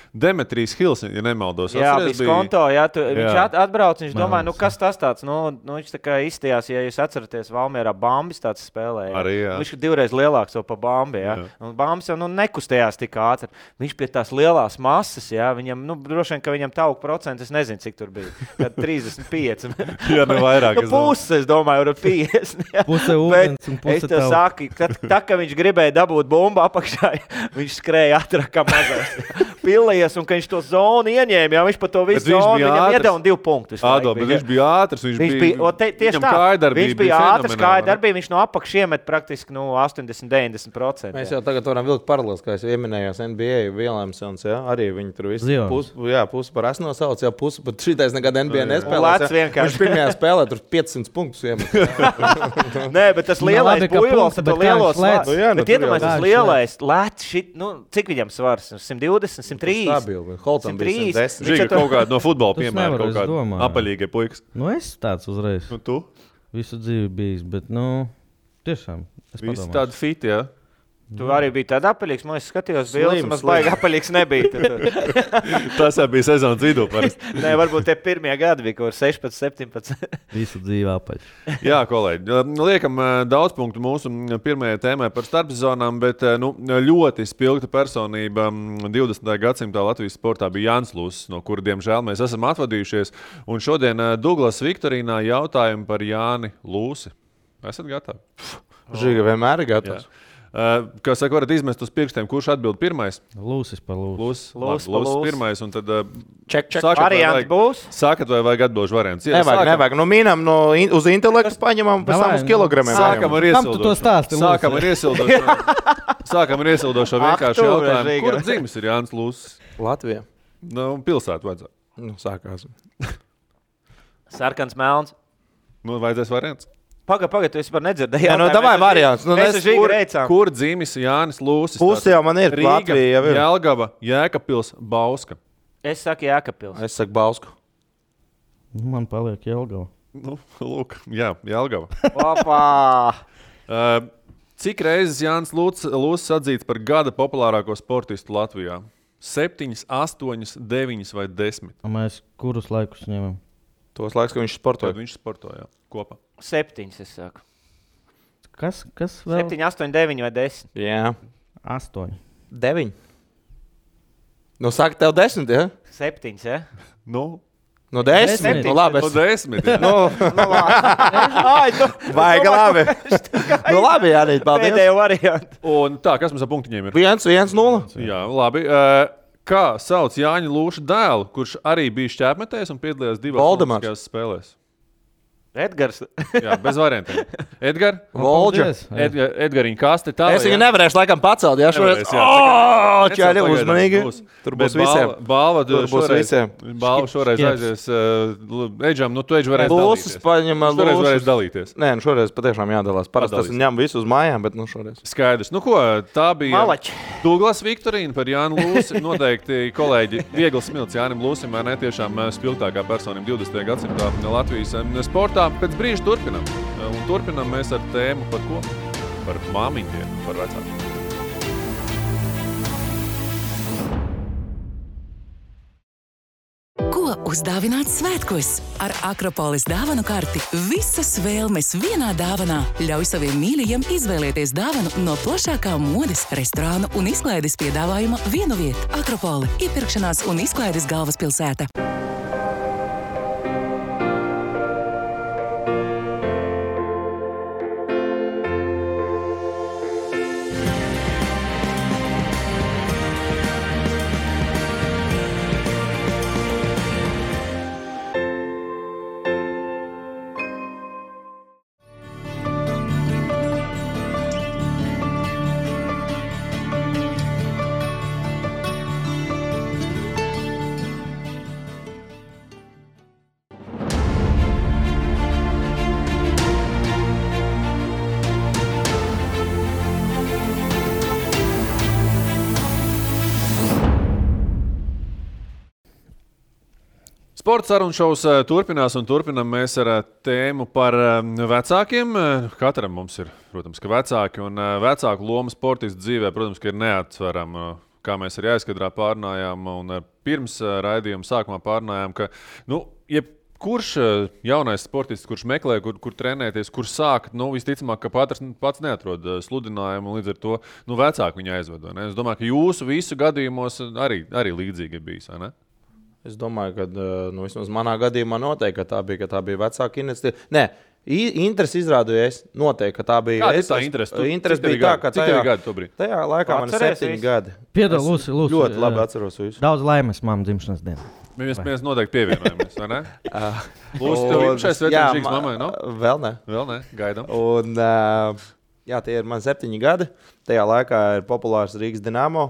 Demetrijs Hils, ja nemaldos. Jā, Biskonto, jā, viņš atbrauc, viņš domāja, kas tas tāds, viņš tā kā izstījās, ja jūs atceraties, Valmierā Bambis tāds spēlēja. Arī, jā. Viņš ir 2 reizes lielāks pa Bambi, ja? Un Bambis jau nekustējās tik ātri. Viņš pie tās lielās masas, ja? Viņam, droši vien, ka viņam tauku procents, es nezinu, cik tur bija. Kad 35. Jā, vairāk. Puses, es domāju, ar 50. Ja? Puse ūdens un puse es tev saku, ka viņš gribēja dabūt bumbu apakšā, viņš skrēja ātrāk kā mazais. Pillējies, un ka viņš to zonu ieņēma, ja? Viņš pa to visu zonu, viņam iedeva 2 punktus. Bet viņš bija ātrs, tieši tā. Viņš bija ātrs, kāja darbība, viņš no apakš iemet praktiski 80-90%. Mēs jau tagad varam vilkt paralēlis, kā es ieminējos NBA Williamsons, ja? Arī viņi tur visi pusi par esmu nosauc, ja pusi pat šitais nekad NBA nespēlēs. Viņš pirmajā spēlē tur 500 punktus iemet. Nē, bet tas lielais buļvals, tad lielos lēts. Bet iedomājies, tas lielais lēts, cik viņam svars? 120, 130? Stabili, Holtam bija 110. Žiga kaut kāda no futbola piemēra, kaut kāda apaļīga puikas. Es tāds uzreiz. Tu? Visu dzīvi bijis, bet, tiešām. Visi tādi fiti, jā? Tu arī biji tādā apaļīgs, man es skatījos bildes, un baigi apaļīgs nebija. Tas jau bija sezonas vidū parasti. Nē, varbūt tie pirmie gadi bija, kur 16, 17. Visu dzīvi apaļ. Jā, kolēģi, liekam daudz punktu mūsu pirmajai tēmai par starpsezonām, bet ļoti spilgta personība 20. gadsimtā Latvijas sportā bija Jānis Lūsis, no kura, diemžēl, mēs esam atvadījušies. Un šodien Douglas Viktorīnā jautājumi par Jāni Lūsi. Esat gatavi? Žiga vienmēr ir gatavs. Kā saka, varat izmest uz pirkstiem, kurš atbild pirmais? Lūsis par lūsi. Lūsis pirmais, un tad Ček. Varianti būs? Sākat vai vajag atbilžu variants? Nevajag. Nu, mīnam uz intelektu paņemam, pēc tam uz kilogramiem. Sākam ar Kam tu to stāsti, Lūsi? Sākam ar iesildošo vienkārši jautājumu. Kur dzimis ir Jānis Lūsis? Latvijā. Pilsētu vajadzētu. Sākās. Sarkans melns. Vajadzēs variants. Pagaid, tu vispār nedzirdēji. Davai variants. Kur dzimis Jānis Lūsis? Pusi jau man ir. Rīga, Jelgava, Jēkabpils, Bauska. Es saku Jēkabpils. Es saku Bausku. Man paliek Jelgava. Lūk, jā, Jelgava. Opā! Cik reizes Jānis Lūsis atzīts par gada populārāko sportistu Latvijā? 7, 8, 9 vai 10? Mēs kurus laikus ņemam? Tos laiks, ka viņš sportoja. Kad viņš sportoja kopā. 7, es saku. Kas vēl? 7, 8, 9 vai 10? Jā. 8. 9. Saka tev 10, ja? 7, ja? No 10. Labi. No 10. Vajag labi. Labi, Jānis, paldies. Pēdējo variantu. Un tā, kas mums ar punktiņiem ir? 1-0. Jā, labi. Kā sauc Jāņa Lūša dēlu, kurš arī bija šķēpmetējs un piedalījās 2 olimpiskajās spēlēs? Edgars. Jā, bez variantiem. Edgars? Volģers. Edgariņa kaste tā. Es viņu nevarēšu laikam pacelt, jā, šoreiz. Čāļi, uzmanīgi. Tur būs visiem. Balva šoreiz aizies. Eģam, tu eģi varēs dalīties. Šoreiz varēs dalīties. Nē, šoreiz patiešām jādalās. Parasti tas ņem visu uz mājām, bet šoreiz. Skaidrs. Ko, tā bija Malači. Douglas Viktorīna par Jānu Lūsi. Noteikti, kolēģi, viegli smilts Jānim Lūsim, vai ne tiešām spilgtākā personība 20. gadsimtā Latvijas sportā. Pēc brīža turpinam. Un turpinam mēs ar tēmu par ko? Par māmiņiem, par vecākiem. Ko uzdāvināt svētkos? Ar Akropolis dāvanu karti visas vēlmes vienā dāvanā. Ļauj saviem mīļajiem izvēlēties dāvanu no plašākā modes, restorānu un izklaides piedāvājuma vienu vietu. Akropoli – iepirkšanās un izklaides galvaspilsēta. Sports sarunu šovs turpinās un turpinam mēs ar tēmu par vecākiem. Katram mums ir, protams, ka vecāki un vecāku loma sportistu dzīvē, protams, ka ir neatsverama. Kā mēs arī aizkadrā pārnājām un pirms raidījuma sākumā pārnājām, ka jebkurš jaunais sportists, kurš meklē, kur trenēties, kur sākt, visticamāk, ka pats neatrod sludinājumu un līdz ar to vecāki viņu aizved. Es domāju, ka jūsu visu gadījumos arī līdzīgi ir bijis, vai ne? Es domāju, ka vismaz manā gadījumā noteikti, ka tā bija vecāka iniciatīva. Nē, interesi izrādīju es. Noteikti, ka tā bija. Kāda ir tā interesi? Interesi bija tā, ka cik tev gadi tobrīd? Tajā laikā man ir 7 gadi. Piedod, Lūsi. Ļoti labi atceros visu. Daudz laimes mammas dzimšanas dienā. Mēs noteikti pievienojamies, vai ne? Lūsi, tev imšais svetīšīgs mammai, no? Vēl ne, gaidām. Un, tie ir man 7 gadi. Tajā laikā ir populārs Rīgas Dinamo.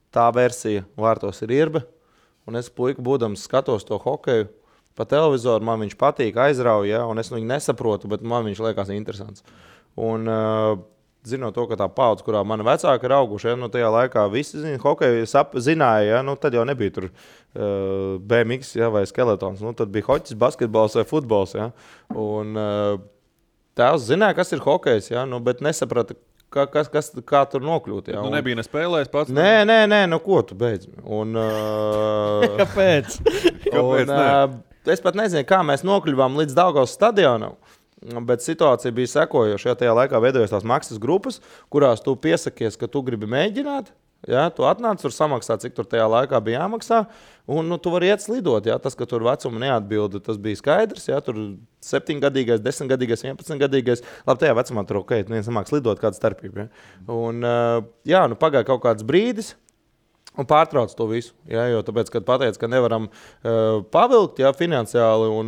Tā versija vārtos ir Irba. Un es puiku būdams skatos to hokeju pa televizoru, man viņš patīk, aizrauja, un es viņu nesaprotu, bet man viņš liekas interesants. Un zinot to, ka tā paudze, kurā mani vecāki ir auguši, tajā laikā visi hokeju zināja, tad jau nebija tur BMX vai skeletons. Tad bija hoķis, basketbols vai futbols. Un tēvs zināja, kas ir hokejs, bet nesaprata, kā tur nokļūt. Jā. Nu, nebija nespēlējis pats. Nē, nu ko tu beidz? Kāpēc? Es pat nezinu, kā mēs nokļuvām līdz Daugavas stadionam. Bet situācija bija sekojoša. Tajā laikā veidojās tās maksas grupas, kurās tu piesakies, ka tu gribi mēģināt. Ja, tu atnāc, tur samaksā, cik tur tajā laikā bija jāmaksā. Un tu vari iet slidot. Ja. Tas, ka tur vecuma neatbilda, tas bija skaidrs. Ja. Tur 7-gadīgais, 10-gadīgais, 11-gadīgais. Labi, tajā vecumā tur ok, neviens nemāk slidot, kāda starpība. Ja. Un nu, pagāja kaut kāds brīdis. Un pārtrauc to visu. Ja, jo tāpēc, kad pateica, ka nevaram pavilkt finansiāli, un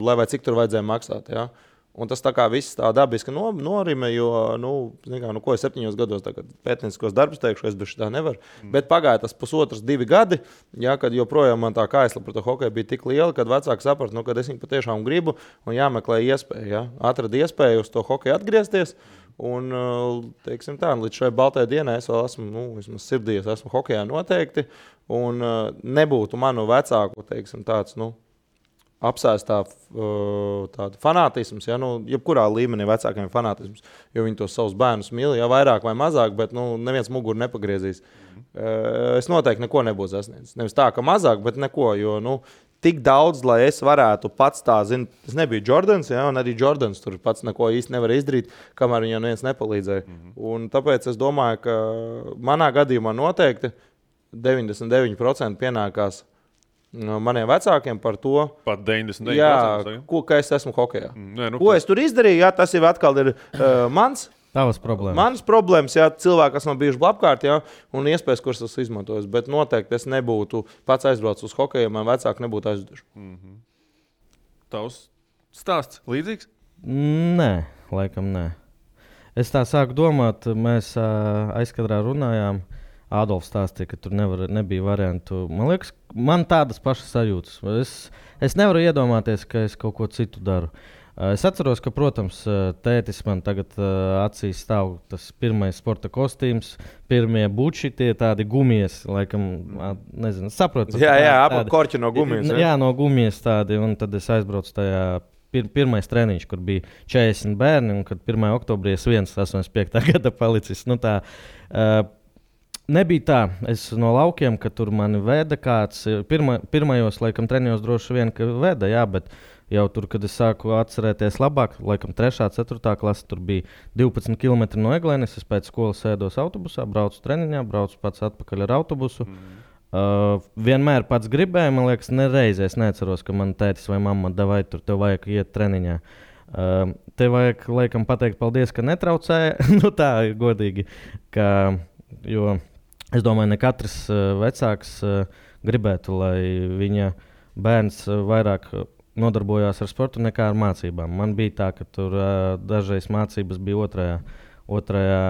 lai vai cik tur vajadzēja maksāt. Ja. Un tas tā kā viss tā dabiski norime, jo, ko es 7 gados pētnieciskos darbus teikšu, es bez šitā nevaru. Bet pagāja tas 1,5–2 gadi, ja, kad joprojām man tā kāsla par to hokeju bija tik liela, kad vecāki saprata, kad es viņu patiešām gribu un jāmeklē iespēja. Ja. Atrada iespēju uz to hokeju atgriezties. Un, teiksim tā, līdz šai baltai dienai es vēl esmu, vismaz sirdī, es esmu hokejā noteikti. Un nebūtu manu vecāku, teiksim, tāds, apsēstā tāda fanātisms, ja, jebkurā līmenī vecākiem fanātisms, jo viņi tos savus bērnus mīl, ja vairāk vai mazāk, bet neviens muguru nepagriezīs. Es noteikti neko nebūtu sasniedzis. Nevis tā, ka mazāk, bet neko, jo tik daudz, lai es varētu pats tā, tas nebija Jordans, ja, un arī Jordans tur pats neko īsti nevar izdarīt, kamēr viņam neviens nepalīdzēja. Un tāpēc es domāju, ka manā gadījumā noteikti 99% pienākās maniem vecākiem par to, pat 99%. Jā, ka es esmu hokejā. Ko es tur izdarīju, jā, tas jau atkal ir Tavas problēmas. Manas problēmas, jā, cilvēki, kas man bijuši apkārt, jā, un iespējas, kuras es izmantoju. Bet noteikti es nebūtu pats aizbraucis uz hokeju, man vecāki nebūtu aizveduši. Tavs stāsts līdzīgs? Nē, laikam nē. Es tā sāku domāt, mēs aizkadrā runājām. Ādolfs stāstīja, ka tur nebija variantu. Man liekas, man tādas pašas sajūtas. Es nevaru iedomāties, ka es kaut ko citu daru. Es atceros, ka, protams, tētis man tagad acīs stāv tas pirmais sporta kostīms, pirmie buči, tie tādi gumijas, laikam, nezinu, saprotu. Jā, apap korķi no gumijas. Jā, no gumijas tādi, un tad es aizbraucu tajā pirmais treniņš, kur bija 40 bērni, un kad 1. oktobrī es 85. gada palicis. Nebija tā, es no laukiem, ka tur mani veda kāds, pirmajos, laikam, treniņos droši vien, ka veda, jā, bet jau tur, kad es sāku atcerēties labāk, laikam 3. 4. klase, tur bija 12 km no Eglēnes, es pēc skolas sēdos autobusā, braucu treniņā, braucu pats atpakaļ ar autobusu. Vienmēr pats gribēju, man liekas, nereizēs neceros, ka man tētis vai mamma davai tur, tev vajag iet treniņā. Tev vajag, laikam, pateikt paldies, ka netraucēja, tā ir godīgi, jo es domāju, ne katrs vecāks gribētu, lai viņa bērns vairāk nodarbojās ar sportu nekā ar mācībām. Man bija tā, ka tur dažreiz mācības bija otrajā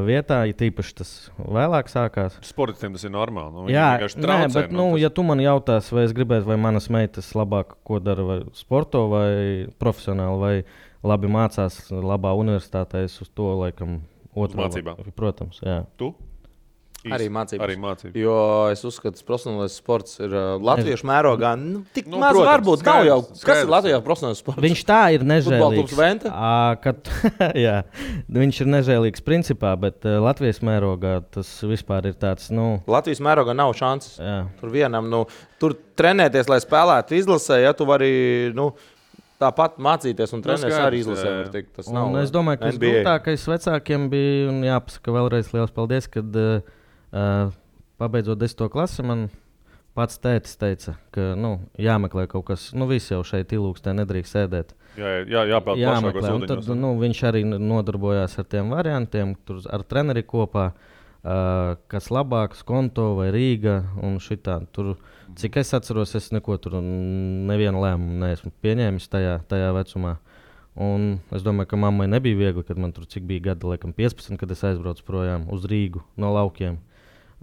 vietā, ja tīpaši tas vēlāk sākās. Sportistiem tas ir normāli. Jā, bet ja tu man jautās, vai es gribētu, vai manas meitas labāk ko dara, vai sporto, vai profesionāli, vai labi mācās labā universitātē, es uz to laikam mācībām. Protams, jā. Tu? Arī mācības. Arī mācības. Jo es uzskatu, ka profesionālais sports ir latviešu mērogā. Tik maz protams, varbūt nav jau. Kas ir Latvijā profesionāls sports? Viņš tā ir nežēlīgs. Jā, viņš ir nežēlīgs principā, bet Latvijas mērogā tas vispār ir tāds. Latvijas mērogā nav šances. Jā. Tur vienam, tur trenēties, lai spēlētu izlasē, ja tu vari. Tāpat mācīties un trenēties arī izlasē. Es domāju, ka tas grūtākais vecākiem bija, un jāpasaka vēlreiz liels paldies, kad pabeidzot 10. klasi, man pats tētis teica, ka jāmeklē kaut kas, visi jau šeit ilūkstē nedrīkst sēdēt. Jāmeklē, un tad viņš arī nodarbojās ar tiem variantiem, tur ar treneri kopā, kas labāks, Konto vai Rīga un šitā. Tur, cik es atceros, es neko tur nevienu lēmumu neesmu pieņēmis tajā vecumā. Un es domāju, ka mammai nebija viegli, kad man tur cik bija gadi, laikam 15, kad es aizbraucu projām uz Rīgu no laukiem.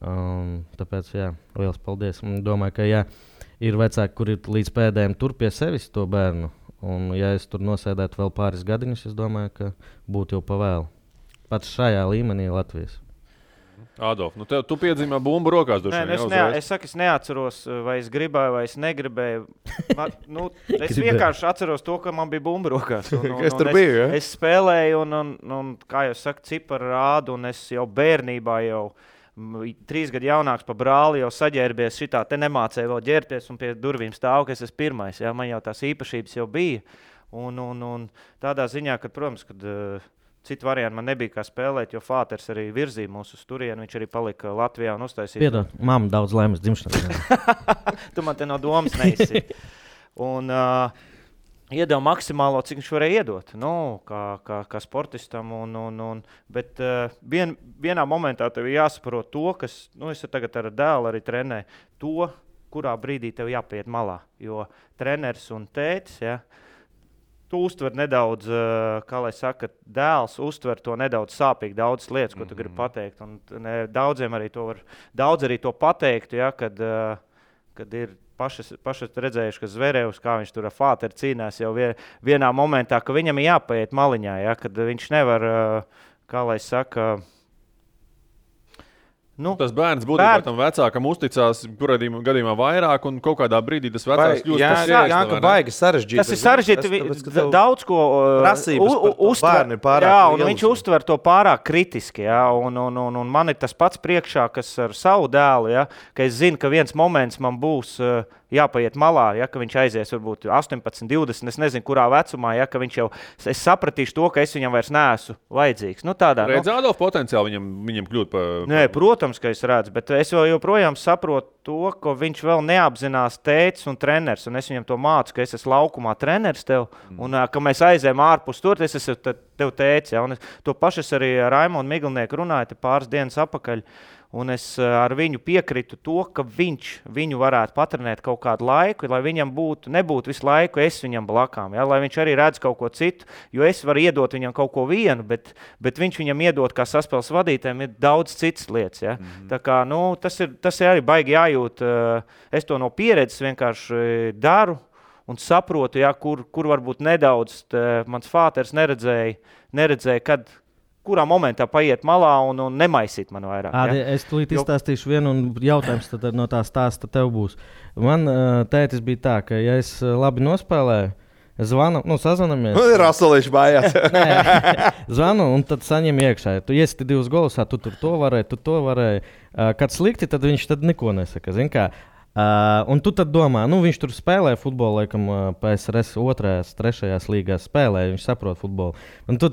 Tāpēc, jā, liels paldies. Un domāju, ka ir vecāki, kuri ir līdz pēdējiem tur pie sevis to bērnu. Un ja es tur nosēdētu vēl pāris gadiņus, es domāju, ka būtu jau pavēlu. Pat šajā līmenī Latvijas. Adolf, nu tu piedzīmē bumbu rokās. Es saku, es neatceros, vai es gribēju, vai es negribēju. Es vienkārši atceros to, ka man bija bumba rokās. Es tur biju, ja? Es spēlēju, un kā jau saka, cipari rādu, un es jau bērnībā 3 gadu jaunāks pa brāli jau saģērbies šitā, te nemācēju vēl ģērties, un pie durvīm stāv, ka es esmu pirmais. Ja? Man jau tās īpašības jau bija. Un tādā ziņā, ka, protams, kad citu variantu man nebija kā spēlēt, jo Fāters arī virzīja mūsu uz turienu, viņš arī palika Latvijā un uztaisīja. Piedod, mamma daudz laimes dzimšanas. Tu man te no domas neizsi. Un iedeva maksimālo, cik viņš varēja iedot, kā sportistam. Bet vienā momentā tev jāsaprot to, kas, es tagad ar dēlu arī trenēju, to, kurā brīdī tev jāpiet malā. Jo treneris un tētis, ja, tu uztver nedaudz, kā lai saka, dēls uztver to nedaudz sāpīgi daudzas lietas, ko tu gribi pateikt. Un daudziem arī to pateikt, ja, kad ir paši redzējuši, ka Zverevs, kā viņš tur ar Fāteru cīnās jau vienā momentā, ka viņam ir jāpaiet maliņā, ja, kad viņš nevar, kā lai saka, tas bērns būtībā tam vecākam uzticās, kurā gadījumā vairāk, un kaut kādā brīdī tas vecāks kļūst par sievieti. Jā, ka baigi sarežģīti. Tas ir sarežģīti, daudz ko uztver. Jā, un viņš uztver to pārāk kritiski, jā, un man ir tas pats priekšā, kas ar savu dēlu, jā, ka es zinu, ka viens moments man būs jāpaiet malā, ja, ka viņš aizies varbūt 18, 20, es nezinu, kurā vecumā, ja, ka viņš jau, es sapratīšu to, ka es viņam vairs neesmu vajadzīgs. Redz Adolf potenciāli viņam kļūt par... Nē, protams, ka es redzu, bet es joprojām saprotu to, ka viņš vēl neapzinās tētis un treneris, un es viņam to mācu, ka es esmu laukumā treneris tev, un ka mēs aizējam ārpus tur, es esmu tev tētis, ja, un to pašu es arī ar Raimondu Miglnieku runāju pāris dienas apakaļ. Un es ar viņu piekritu to, ka viņš viņu varētu patrenēt kaut kādu laiku, lai viņam nebūtu visu laiku es viņam blakām, ja? Lai viņš arī redz kaut ko citu, jo es varu iedot viņam kaut ko vienu, bet viņš viņam iedot kā saspēles vadītājiem ir daudz citas lietas. Ja? Tā kā, tas ir arī baigi jājūt, es to no pieredzes vienkārši daru un saprotu, ja, kur varbūt nedaudz mans Fāters neredzēja, kurā momentā paiet malā un nemaisīt man vairāk. Ja? Es tulīt izstāstīšu vienu, un jautājums tad no tā stāsta tev būs. Man tētis bija tā, ka ja es labi nospēlēju, es zvanu, sazvanamies. Rasolīši mājās. Zvanu, un tad saņem iekšā. Tu iesti 2 golus, tu to varēji. Kad slikti, tad viņš neko nesaka. Zin kā? Un tu tad domā, viņš tur spēlē futbolu, laikam, PSRS 2. 3. līgā spēlē, viņš saprot futbolu. Un tu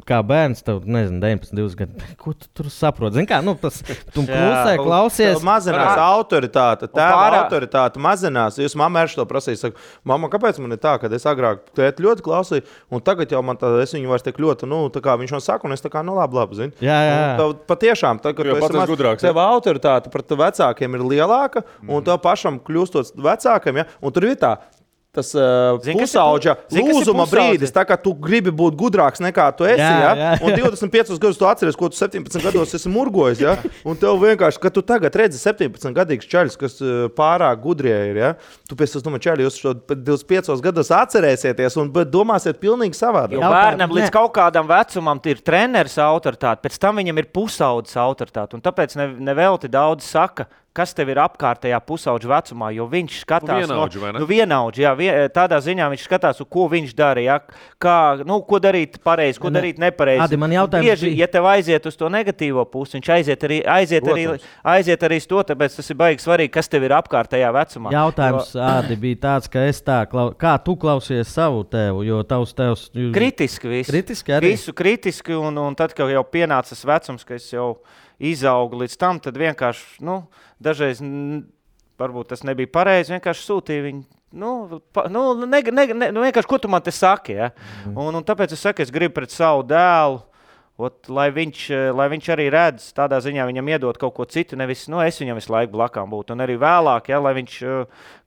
kā bērns, tev, 19, 20 gadi, ko tu tur saproti? Zini kā, tu klusē, klausies. Mazinās autoritāte, autoritāte mazinās. Jūs mamma to prasīja, saka, mamma, kāpēc man ir tā, kad es agrāk tēti ļoti klausīju, un tagad jau man es viņu vairs tik ļoti, tā kā viņš man saka, un es tā kā, labi, zini. Jā. Patiešām, kad tu esi gudrāks, tev autoritāte pret vecākiem ir lielāka, un tev pašam kļūstot vecākam, ja? Un tur ir tas pusauģa lūzuma brīdis, tā kā tu gribi būt gudrāks nekā tu esi, jā. Un 25 gadus tu atceries, ko tu 17 gados esi murgojis, ja? Un tev vienkārši, ka tu tagad redzi 17 gadīgs čaļus, kas pārāk gudrie ir, ja? Tu pēc tam čaļi, jūs 25 gados atcerēsieties un domāsiet pilnīgi savādāk. Jo bērnam līdz kaut kādam vecumam ir treneris autoritāte, pēc tam viņam ir pusaudzes autoritāte, un tāpēc nevelti daudz saka, kas tev ir apkārtējā pusauģa vecumā, jo viņš skatās vienaudži, jā, tādā ziņā viņš skatās, ko viņš dara, ja, ko darīt pareizi, ko darīt nepareizi. Adi, man jautājums bieži, ja tev aiziet uz to negatīvo pusi, viņš aiziet arī uz to, tāpēc tas ir baigi svarīgi, kas tev ir apkārtējā vecumā. Jautājums, Adi, bija tāds, ka kā tu klausies savu tevu, jo tavs tevs... Kritiski visu. Kritiski arī? Visu kritiski, un tad, kad jau pienācis vecums, ka es jau izaugu līdz tam, tad vienkārši, dažreiz, varbūt tas nebija pareizi, vienkārši sūtīja viņu, vienkārši, ko tu man te saki, ja? Un tāpēc es saku, es gribu pret savu dēlu, lai viņš arī redz, tādā ziņā viņam iedot kaut ko citu, nevis, es viņam visu laiku blakām būtu, un arī vēlāk, ja, lai viņš,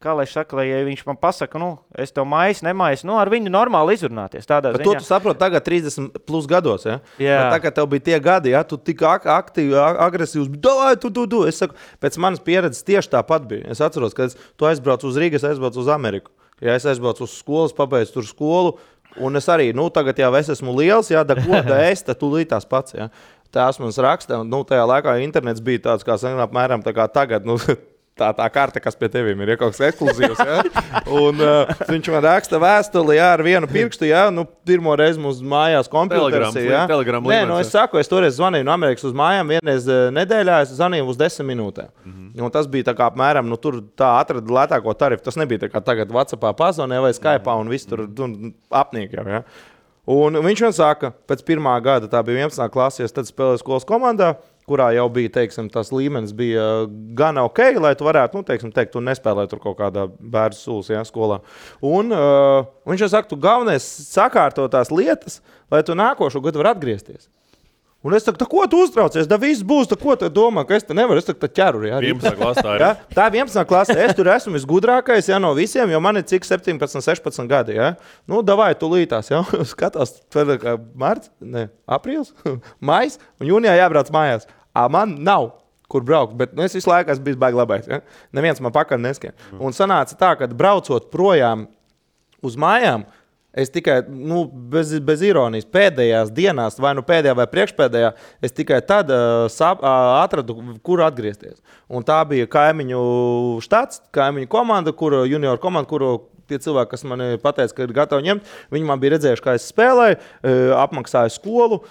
kā lai saka, lai ja viņš man pasaka, es tev maisu, ar viņu normāli izrunāties, tādā ziņā. To tu saproti tagad 30 plus gados, ja? Jā. Tagad tev bija tie gadi, ja, tu tik aktīvi, agresīvs, tu, es saku, pēc manas pieredzes tieši tāpat bija. Es atceros, ka tu aizbrauc uz Rīgas, aizbrauc uz Ameriku. Ja es aizbraucu uz skolas, pabeidzu tur skolu, un es arī, tagad jau es esmu liels, jā, tūlīt tās pats, jā. tās mums raksta, un tajā laikā internets bija tāds, kā apmēram tā kā tagad, tā karte, kas pie tevīm ir kaut kas ekskluzīvs. Ja? Un viņš man raksta vēstuli ar vienu pirkstu, ja? Pirmo reizi mums mājās kompjuters. Nē, es saku, es toreiz zvanīju no Amerikas uz mājām, vienreiz nedēļā es zvanīju uz 10 minūtēm. Un tas bija tā kā apmēram, tur tā atrada lētāko tarifu. Tas nebija tā kā tagad WhatsAppā pazvanē vai Skype'ā un viss tur apnīk jau. Ja? Un viņš man saka, pēc pirmā gada, tā bija 11. klasies, tad spēlēju skolas komandā, kurā jau bija, tas līmenis bija gan ok, lai tu varētu, teikt, tu nespēlēji tur kaut kādā bērnu sūs, ja, skolā. Un viņš jau saka, tu galvenais sakārto tās lietas, lai tu nākošo gadu var atgriezties. Un es saku, ko tu uztraucies? Da viss būs, ko tu domā, ka es te nevaru, es tā ķeru. Ja, 11. klasē ir. Ja? Tā 11. klasē, es tur esmu visgudrākais, ja, no visiem, jo man ir cik 17, 16 gadi. Ja? Davai, tu lītās, ja? Skatās, marts, aprīls, majs, un jūnijā jābrauc mājās. Man nav, kur braukt, bet es visu laiku esmu bijis baigi labais. Ja? Neviens man pakaļ neskiem. Un sanāca tā, ka braucot projām uz mājām, es tikai, bez ironijas, pēdējās dienās, vai pēdējā vai priekšpēdējā, es tikai tad atradu, kur atgriezties. Un tā bija kaimiņu štats, kaimiņu komanda, junior komanda, kuru tie cilvēki, kas man pateica, ka ir gatavi ņemt, viņi man bija redzējuši, kā es spēlēju, apmaksāju skolu,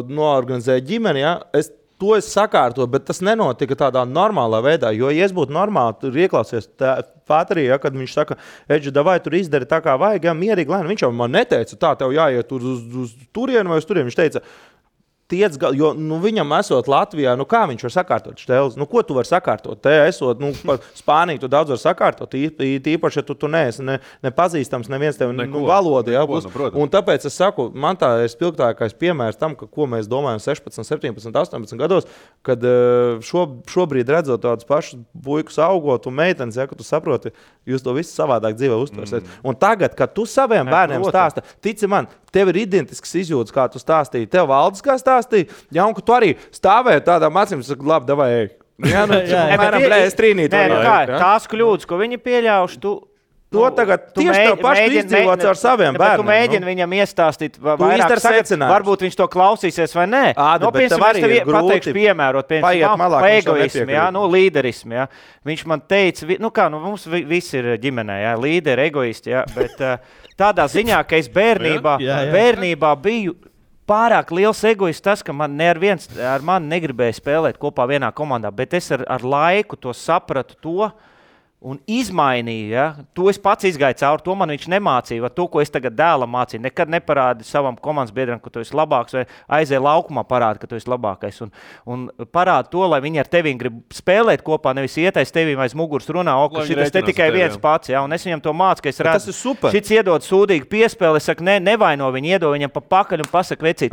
noorganizēju ģimeni, ja? To es sakārtoju, bet tas nenotika tādā normālā veidā, jo, ja es būtu normāli, tur ieklausies Pāterī, ja, kad viņš saka, Edži, davai tur izdari tā kā vajag, ja, mierīgi lēni, viņš jau man neteica, tā tev jāiet uz turienu vai uz turienu, viņš teica, jo viņam esot Latvijā, kā viņš var sakārtot šteles? Ko tu vari sakārtot? Te esot, Spāniju tu daudz var sakārtot, īpaši, ja tu neesi nepazīstams, neviens tev valoda. Ja, un tāpēc es saku, man tā ir spilgtākais piemērs tam, ko mēs domājam 16, 17, 18 gados, kad šobrīd redzot tādus pašus puikus augot un meitenes, ja, ka tu saproti, jūs to visu savādāk dzīvē uztversiet. Un tagad, kad tu saviem bērniem stāsta, tici man, tev ir identisks izjūtas, kā tu stāstīji, tev Valdis kā stāstīja, ja, un ka tu arī stāvēji tādām acīm, saka, labi, davai, ej. Ja, es trīnīt. Tās kļūdas, ko viņi pieļauši, to tagad tieši tev paši izdzīvots ar saviem bērniem. Tu mēģini viņam iestāstīt vairāk sagad, varbūt viņš to klausīsies vai nē. Bet tev arī ir grūti pateikšu piemērot, pa egoismu, ja, līderismu. Ja. Viņš man teica, mums visi ir ģimenē, ja, līderi, egoisti, ja, bet tādā ziņā, ka es bērnībā biju pārāk liels egoists tas, ka man neviens ar mani negribēja spēlēt kopā vienā komandā, bet es ar laiku to sapratu to, un izmainīju, ja? To es pats izgāju cauri, to man viņš nemācīja, to, ko es tagad dēlam mācīju. Nekad neparādi savam komandas biedram, ka tu esi labāks, vai aizēja laukumā parādi, ka tu esi labākais. Un parādi to, lai viņi ar tevīm grib spēlēt kopā, nevis ietais tevīm aiz muguras runā, ka šitas te tikai viens pats, ja? Un es viņam to mācu, ka es redzu, šits iedod sūdīgi piespēli, es saku, nevaino viņu, iedod viņam pa pakaļ un pasaka, vecīt,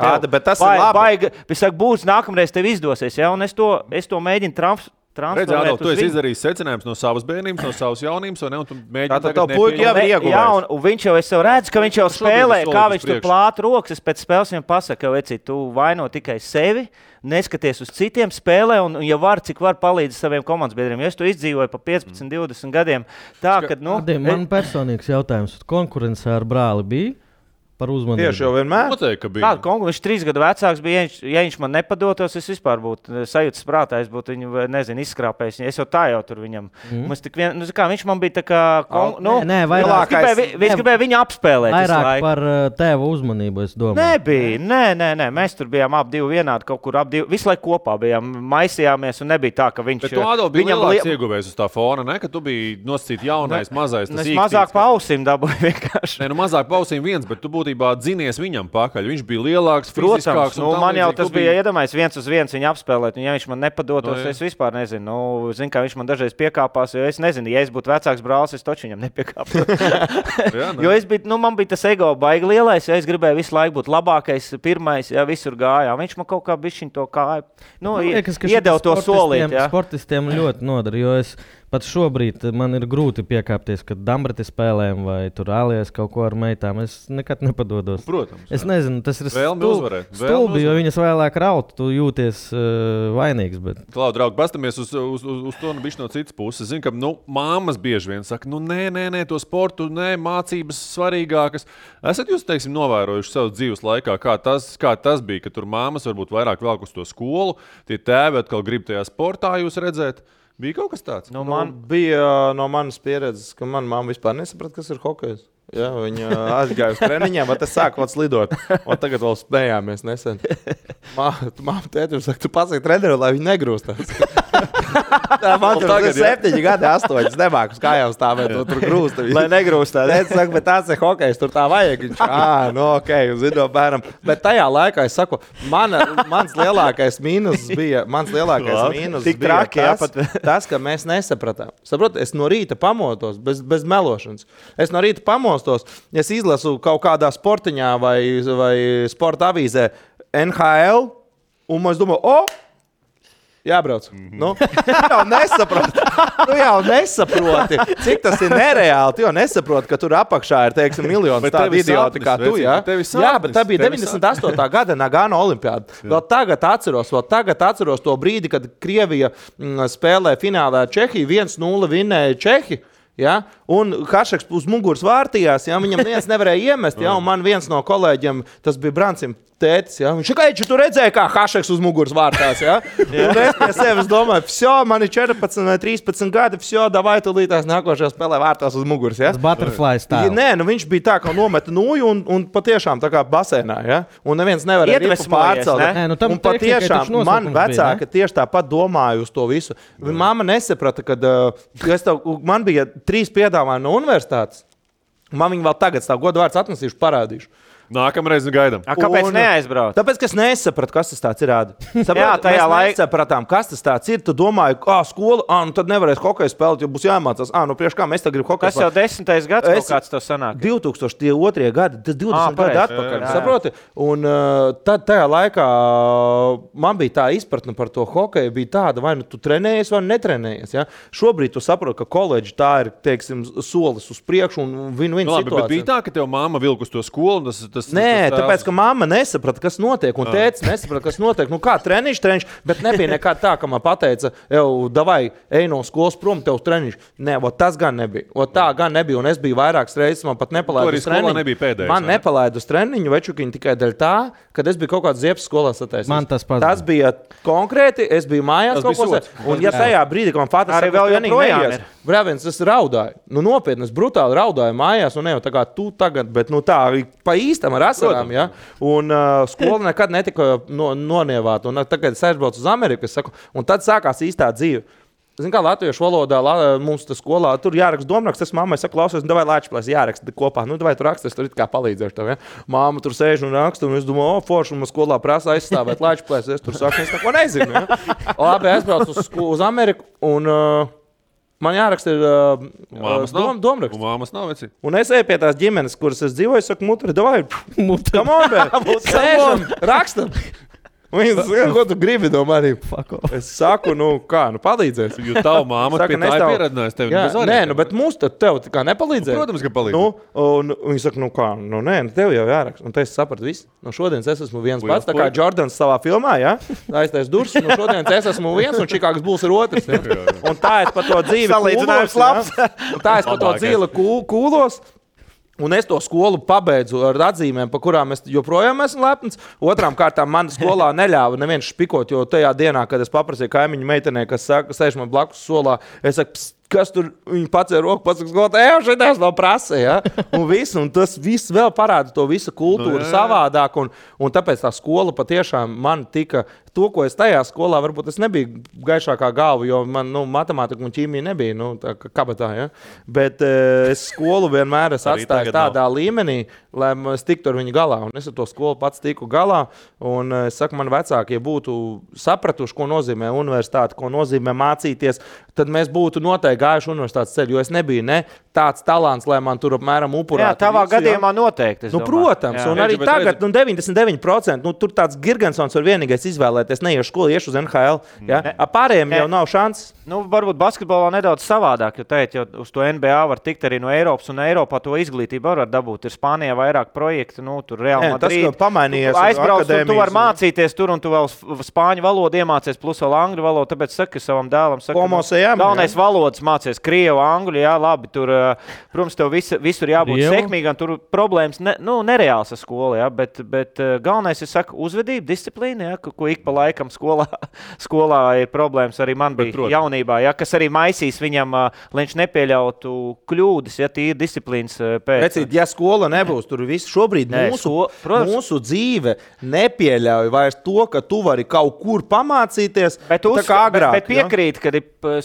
būs nākamreiz tev izdosies, ja? Un es to mēģinu transferēt. Redz, Ādol, tu esi izdarījis secinājums no savas bērnības, no savas jaunības, vai ne? Un tu mēģini tagad nepieņemt. Jā, un viņš jau, es jau redzu, ka viņš jau spēlē, kā viņš tur plāta rokas, es pēc spēles viņam pasaku, vecīt, tu vaino tikai sevi, neskaties uz citiem spēlē, un ja var, cik var palīdzi saviem komandas biedriem. Jo es to izdzīvoju pa 15, 20 gadiem. Tā, kad, man personīgs jautājums, konkurence ar brāli bija? Par uzmanību. Tieši jau vienmēr. Noteikti, ka bija. Viņš 3 gadu vecāks bija, ja viņš man nepadotos, es vispār būtu sajūtas prātā, es būtu viņu, izskrāpējis. Es jau tā jau tur viņam. Viņš man bija tā kā... Viņš gribēja viņu apspēlēt. Vairāk par tēva uzmanību, es domāju. Nebija. Mēs tur bijām ap divi vienādi, kaut kur ap divi. Visu laiku kopā bijām, maisījāmies un nebija tā, ka viņš... Bet tu, Ādol, bija lielāks ieguvējs uz tā fona, ne? Ka tu biji nosacīt jaunais, mazais. Es mazāk pa ausīm dabūju vienkārši. Mazāk pa ausīm viens, bet tu būtībā dzinies viņam pakaļ. Viņš bija lielāks, fiziskāks. Man jau tas bija iedomājies 1-1 viņu apspēlēt, un ja viņš man nepadotos, es vispār nezinu. Zinu, kā viņš man dažreiz piekāpās, jo es nezinu, ja es būtu vecāks brālis, es taču viņam nepiekāpos. Jo man bija tas ego baigi lielais, ja es gribēju visu laiku būt labākais, pirmais, ja visur gājā. Viņš man kaut kā bišķiņ to kāju. Iedeva to solīt. Sportistiem ļoti nodara, jo es pat šobrīd man ir grūti piekāpties, kad Dambreti spēlēm vai tur ālies kaut ko ar meitām. Es nekad nepadodos. Protams. Es nezinu, tas ir stulbi, jo viņas vēlāk raut, tu jūties vainīgs. Bet... Klau, draugi, pastamies uz to bišķi no citas puses. Zinu, ka māmas bieži vien saka, nē, to sportu, mācības svarīgākas. Esat jūs, teiksim, novērojuši savu dzīves laikā, kā tas bija, ka tur māmas varbūt vairāk velk uz to skolu, tie tēvi atkal grib tajā sportā jūs redzēt. Bija kaut kas tāds? Bija no manas pieredzes, ka mana mamma vispār nesaprata, kas ir hokejs. Ja, viņa aizgāja uz treniņiem, bet es sāku slidot. Un tagad vēl spējāmies nesen. Māma tētim saka, tu pasaki treneru, lai viņi negrūstās. Man tur tagad 7 gadi, 8. Nemāku uz kājām stāvēt, tur grūst. Lai negrūstās. Es saku, bet tāds ir hokejs, tur tā vajag. Viņš, ok, zinu, bērnam. Bet tajā laikā es saku, mans lielākais mīnus bija tas, ka mēs nesapratām. Saprot, es no rīta pamotos, bez melošanas. Es no rīta pamostos, es izlasu kaut kādā sportiņā vai sporta avīzē NHL, un es domāju, jābrauc. Nu, jau nesaproti, cik tas ir nereāli. Tu jau nesaproti, ka tur apakšā ir, teiksim, miljonus tādu idioti kā tu. Ja? Jā, bet tā bija 98. gada Nagano olimpiāda. Vēl tagad atceros to brīdi, kad Krievija spēlē finālā Čehiju, 1-0 vinnēja Čehi. Ja? Un Hašeks uz muguras vārtījās, ja? Viņam neviens nevarēja iemest, ja? Un man viens no kolēģiem, tas bija Brancim tētis, ja? Viņš saka, tu redzēji, kā Hašeks uz muguras vārtās, ja? Un es pie sevis domāju, man ir 14 vai 13 gadi, davai tu līdās nākošajā spēlē vārtās uz muguras, ja? Tas butterfly style. Nē, viņš bija tā, ka nometa nūju un patiešām tā kā basēnā, ja? Un neviens nevarēja ripu pārcelt. Un patiešām man vecāka tieši tāpat domāju uz to visu. Mamma nesaprata, kad man bija 3 piedāvājumi no universitātes. Man viņi vēl tagad stāv godu vārds atnesīšu, parādīšu. Nākamreiz gaidām. Kāpēc neaizbraukt? Tāpēc, ka es nesapratu, kas tas tāds ir. Mēs nesapratām, kas tas tāds ir. Tu domāji, skola, nu tad nevarēs hokeju spēlēt, jo būs jāmācās. Priekš kā mēs tagad gribam hokeju spēlēt. Tas jau 10. gads kaut kāds tev sanāk. 2002. gadi, tas 20 gadi atpakaļ, saproti? Un tad tajā laikā man bija tā izpratne par to hokeju, bija tāda, vai nu tu trenējies vai netrenējies. Ja? Šobrīd tu saproti, ka koledži tā ir, teiksim, solis uz priekšu un win-win situācija. Bet bija tā, ka tev māma vilk uz to skolu, Nē, tāpēc, ka mamma nesaprata, kas notiek, un tētis nesaprata, kas notiek. Nu, kā treniņš, bet nebija nekāda tā, ka man pateica, davai, ej no skolas prom, tev treniņš. Nē, tas gan nebija. Tā gan nebija, un es biju vairākas reizes, man pat nepalaidu uz treniņu. Man nepalaidu uz treniņu, večukiņu tikai dēļ tā, kad es biju kaut kāds ziepes skolā sataisījis. Man tas pats. Tas bija konkrēti, es biju mājās kaut ko sat. Un ja tajā brīdī, kad man Fatas treniņu Brāviens, es raudāju. Nu, nopietni, es brutāli raudāju mājās, un ne jau tā kā tu tagad, bet tā pa īstam ar asarām, ja? Un skola nekad netika nonievāta. Un tagad es aizbraucu uz Ameriku, es saku, un tad sākās īstā dzīve. Zini, kā latviešu valodā mums tas skolā, tur jāraksta domraksts, es mammai saku, klausies, davai Lāčplēs jāraksta kopā. Nu, davai tu raksti, es tur it kā palīdzēšu tev, ja? Māma tur sēž un raksta, un es domāju, forši, un man skolā prasa aizstāvēt Lāčplēs, es tur saku, es neko nezinu, ja? Labi, aizbraucu uz Ameriku, un man jāraksta ir domraksts. Un māmas nav veci. Un es eju pie tās ģimenes, kuras es dzīvoju, es saku, mutri, davai, come on, bē, sēžam, rakstam. Viņi saka, ko tu gribi no maniem? Es saku, palīdzēs. Jo tavu māma pie tā ir pieredinājusi tevi. Nē, bet mums tev kā nepalīdzēja. Protams, ka palīdzēja. Un viņi saka, nē, tev jau jāraksta. Un te es sapratu visu. No šodienas es esmu viens pats, tā kā Jordans savā filmā, ja? Aiztais durs, no šodienas es esmu viens, un Čikāgas Bulls ir otrs. Ja? Un tā es pa to dzīvi salīdzinājums labs. Un tā es pa to dzīvi kūlos. Un es to skolu pabeidzu ar atzīmēm, par kurām es joprojām esmu lepns. Otrām kārtām man skolā neļāva neviens špikot, jo tajā dienā, kad es paprasīju kaimiņu meitenei, kas sēž man blakus solā, es saku, kas tur viņi pacēla roku, pasaka, skolotāji, šitās vēl prasa, ja? Un tas viss vēl parāda to visu kultūru savādāk, un tāpēc tā skola patiešām man tika, to, ko es tajā skolā, varbūt es nebiju gaišākā galva, jo man, matemātika un ķīmija nebija, tā kā kabatā, ja? Bet es skolu vienmēr atstāju tādā līmenī, lai es tiktu ar viņu galā, un es ar to skolu pats tiku galā, un es saku, man vecākie būtu sapratuši, ko nozīmē universitāte, ko nozīmē mācīties, tad mēs būtu noteikti gājuši universitātes ceļu, jo es nebiju tāds talants, lai man tur apmēram upurātu. Jā, tavā gadījumā noteikti, es domāju. Protams, un arī tagad 99%, tur tāds Girgensons var vienīgais izvēlēties, neiešu skolu, iešu uz NHL. Ja? Pārējiem jau nav šanses. Nu, varbūt basketbolā nedaudz savādāk, jo uz to NBA var tikt arī no Eiropas, un Eiropā to izglītību var dabūt. Ir Spānijā vairāk projektu, tur Real Madrid. Tas, ka pamainījies aizbrauc, tu vari mācīties tur, un tu vēl spāņu valodu iemācies, plus vēl angļu valodu, tāpēc saka savam dēlam, galvenais valodas mācies, krievu, angļu, jā, labi, tur, protams, tev visur jābūt sekmīgam, tur problēmas, nereāls ar skolu, jā, bet galvenais ir, saka, uzvedība, disciplīna, jā, ko ik pa laikam skolā ir problēmas, arī man bija jaunībā. Ja, kas arī maisīs viņam, lai viņš nepieļautu kļūdas, ja tīri disciplīnas pēc. Precīt, ja skola nebūs, tur viss šobrīd mūsu dzīve nepieļauj vairs to, ka tu vari kaut kur pamācīties, tā kā agrāk. Bet piekrīt, ka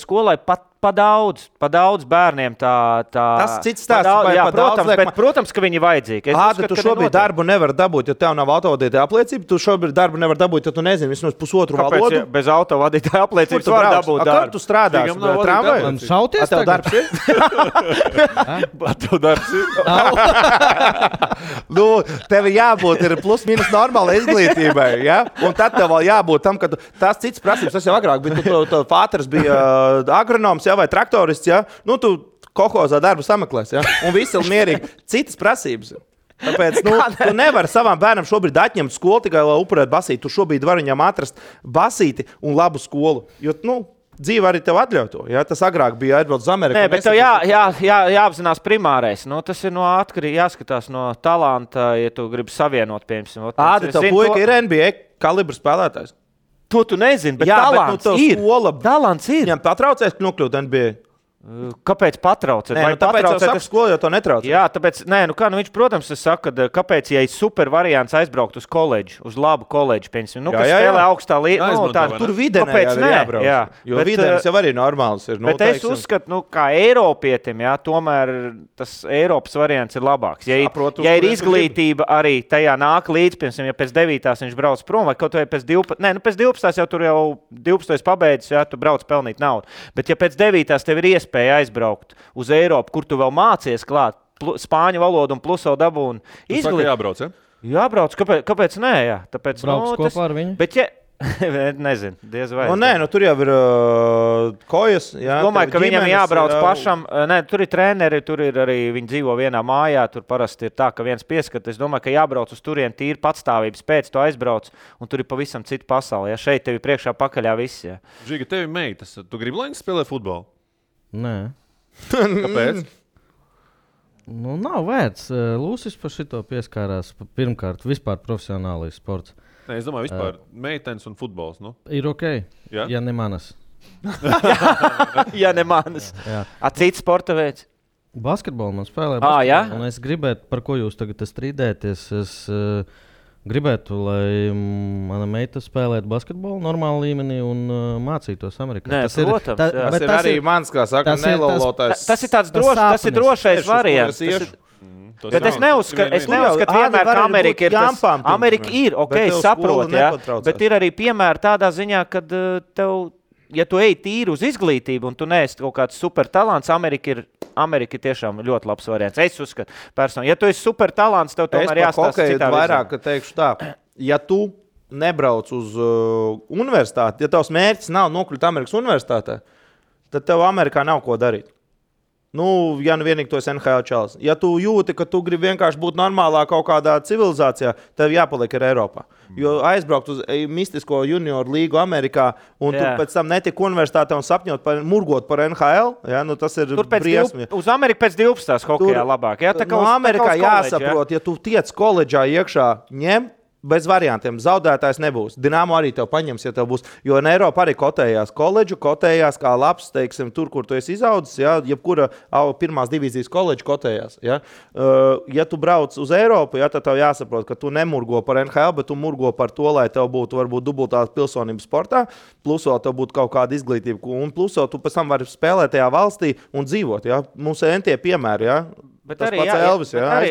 skolai pa daudz bērniem tā... Tas cits stāsts. Protams, ka viņi ir vajadzīgi. Tu šobrīd darbu nevar dabūt, ja tev nav autovadītāja apliecība. Tu šobrīd darbu nevar dabūt, ja tu nezini vismaz pusotru valodu. Bez autovadītāja apliecības var dabūt darbu. Kur tu strādās? Man šauties tev darbs ir? Tev darbs ir? Tev jābūt ir plus mīnus normāla izglītībai, ja? Un tad tev vēl jābūt tam, ka tās cits prasības, tas jau agrāk bija. Tu fāters bija agronoms, vai traktorists, ja? Tu kohozā darbu sameklēs, ja? Un visi ir mierīgi. Citas prasības. Tāpēc tu nevari savam bērnam šobrīd atņemt skolu tikai, lai upurētu basīti. Tu šobrīd vari viņam atrast basīti un labu skolu. Jo, dzīve arī tev atļauj to. Ja? Tas agrāk bija atbrauc uz Ameriku. Nē, bet tev jāapzinās primārais. Tas ir atkarīgi jāskatās no talanta, ja tu gribi savienot, piemēram. Tev puika ir NBA kalibra spēlētājs. To tu nezini, bet talants ir. Viņam patraucēs nokļūt NBA. Kāpēc patraucēt? Tāpēc jau saka skolu, jo to netraucē. Jā, tāpēc, viņš, protams, saka, kāpēc, ja ir super variants aizbraukt uz koledžu, uz labu koledžu, piemēram, kas spēlē augstā līmenī. Tur videnē arī jābrauc. Jā, jo videnis jau arī normāls ir. Bet es uzskatu, kā Eiropietim, tomēr tas Eiropas variants ir labāks. Ja ir izglītība arī tajā nāk līdz, piemēram, ja pēc 9. viņš brauc prom, vai kaut vai pēc 12. Pēc 12. jau tur jau 12. pabeidzis, tu brauc pelnīt naudu. Bet ja pēc 9. tev ir iespēja aizbraukt uz Eiropu, kur tu vēl mācies klāt spāņu valodu un plus vēl dabūni izglītību. Jābrauc, ja? Jābrauc, kāpēc nē, jā. Tāpēc, brauc kopā ar viņu? Bet, nezinu, diez vai. Tur jau ir kojas. Jā, domāju, ka viņam jābrauc pašam. Tur ir treneri, tur ir arī viņi dzīvo vienā mājā. Tur parasti ir tā, ka viens pieskat. Es domāju, ka jābrauc uz turieni tīri patstāvības pēc, tu aizbrauc, un tur ir pavisam cita pasaule. Ja šeit tevi priekšā pakaļā viss. Ja. Žiga, tevi meitas. Tu gribi, lai viņi spēlē futbolu? Nē. Kāpēc? Nav vērts. Lūsis par šito pieskārās. Pirmkārt, vispār profesionālais sports. Nē, es domāju, vispār meitenes un futbols. Ir ok, ja ne manas. Ja ne manas. Cits sporta veids? Basketbolu man spēlē. Jā? Un es gribētu, par ko jūs tagad strīdēties, es gribētu, lai mana meita spēlētu basketbolu normālā līmenī un mācītos Amerikā. Nē, tas ir arī mans, kā saka, nelolotājs. Tas ir tāds drošais variants. Bet es neuzskatu vienmēr, ka Amerika ir tas. Amerika ir, saprot, bet ir arī piemēri tādā ziņā, kad tev, ja tu ej tīri uz izglītību un tu neesi kaut kāds super talants, Amerika ir tiešām ļoti labs variants. Es uzskatu, personīgi. Ja tu esi super talants, tev tomēr jāstāsta citā virzienā. Vairāk teikšu tā, ja tu nebrauc uz universitāti, ja tavs mērķis nav nokļūt Amerikas universitātē, tad tev Amerikā nav ko darīt. Ja vienīgi tu esi NHL čalis. Ja tu jūti, ka tu gribi vienkārši būt normālā kaut kādā civilizācijā, tev jāpaliek ir Eiropā. Jo aizbraukt uz mistisko junioru līgu Amerikā un tu pēc tam netik universitātē un sapņot murgot par NHL, tas ir briesmi. Uz Ameriku pēc 12. hokejā labāk. Amerikā jāsaprot, ja tu tiec koledžā iekšā, ņem, bez variantiem. Zaudētājs nebūs. Dinamo arī tev paņems, ja tev būs. Jo Eiropa arī kotējās koledžu, kotējās kā labs, teiksim, tur, kur tu esi izaudzis, jebkura pirmās divīzijas koledža kotējās. Ja tu brauc uz Eiropu, tad tev jāsaprot, ka tu nemurgo par NHL, bet tu murgo par to, lai tev būtu varbūt dubultā pilsonība sportā, plus vēl tev būtu kaut kāda izglītība, un plus vēl tu pēc tam vari spēlēt tajā valstī un dzīvot. Mums ir entie piemēri, Bet tas arī, Elvis, arī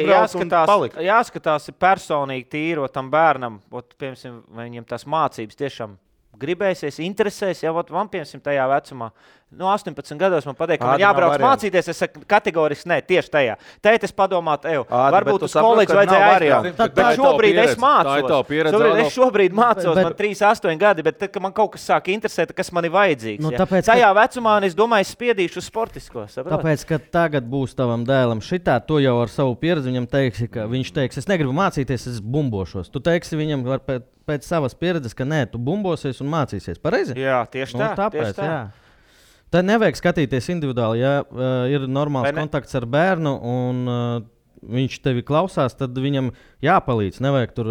jāskatās personīgi tīro tam bērnam, piemēram, vai viņam tās mācības tiešām gribēsies, interesēs, jau man piemēram tajā vecumā. 18 gados man pateikt, ka man Ādi jābrauc nav variantu. mācīties. Es saku kategoriski nē, tieši tajā. Tēt es padomātu, Ādi, varbūt bet tu uz saproti, koledžu ka vajadzēja nav aizbraukt. variantu. Bet Tā ir tava šobrīd es pieredze. Tā ir tava mācos. pieredze, Es Adolf. šobrīd mācos, Bet- man 3-8 gadi, bet tad, kad man kaut kas sāk interesēt, kas man ir vajadzīgs. Nu, Ja? tāpēc, Tajā vecumā es domāju, es spiedīšu uz sportisko. Saprot? Tāpēc, ka tagad būs tavam dēlam šitā, tu jau ar savu pieredzi viņam teiksi, ka viņš teiks, es negribu mācīties, es bumbošos. Tu teiksi viņam pēc savas pieredzes, ka nē, tu bumbosies un mācīsies. Pareizi? Jā, tieši tā. Tāpēc, tieši tā. jā. Tad nevajag skatīties individuāli. Ja ir normāls Vai ne? kontakts ar bērnu un viņš tevi klausās, tad viņam jāpalīdz. Nevajag tur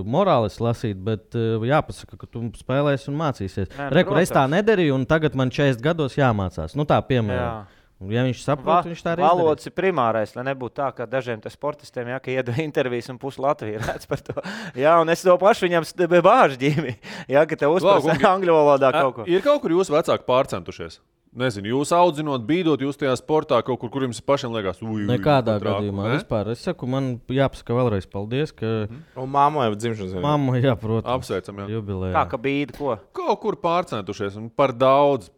morālis lasīt, bet jāpasaka, ka tu spēlēsi un mācīsies. Nē, Rekur, es tā protams. nedarīju, un tagad man 40 gados jāmācās. Nu, tā piemēram. Ja viņš saprot, viņš tā arī izdarīs. Valodas ir primārais, lai nebūtu tā, ka dažiem sportistiem, ja, ka iedod intervijas un pusi Latvija redz par to. Jā, un es to pašu viņam bāžu ģīmi, ja, ka te uzprasa angļu valodā kaut ko. Ir kaut kur jūsu vecāki pārcentušies? Nezinu, jūs audzinot, bīdot, jūs tajā sportā kaut kur jums pašiem liekas, Nekādā gadījumā. Vispār, es saku, man jāpasaka vēlreiz paldies, ka Un māmai jau dzimšanas dienā. mamma jāprot. Apsveicam, jā. Jubilejā. Kā ka bīda ko? Kaut kur pārcentušies un par daudz.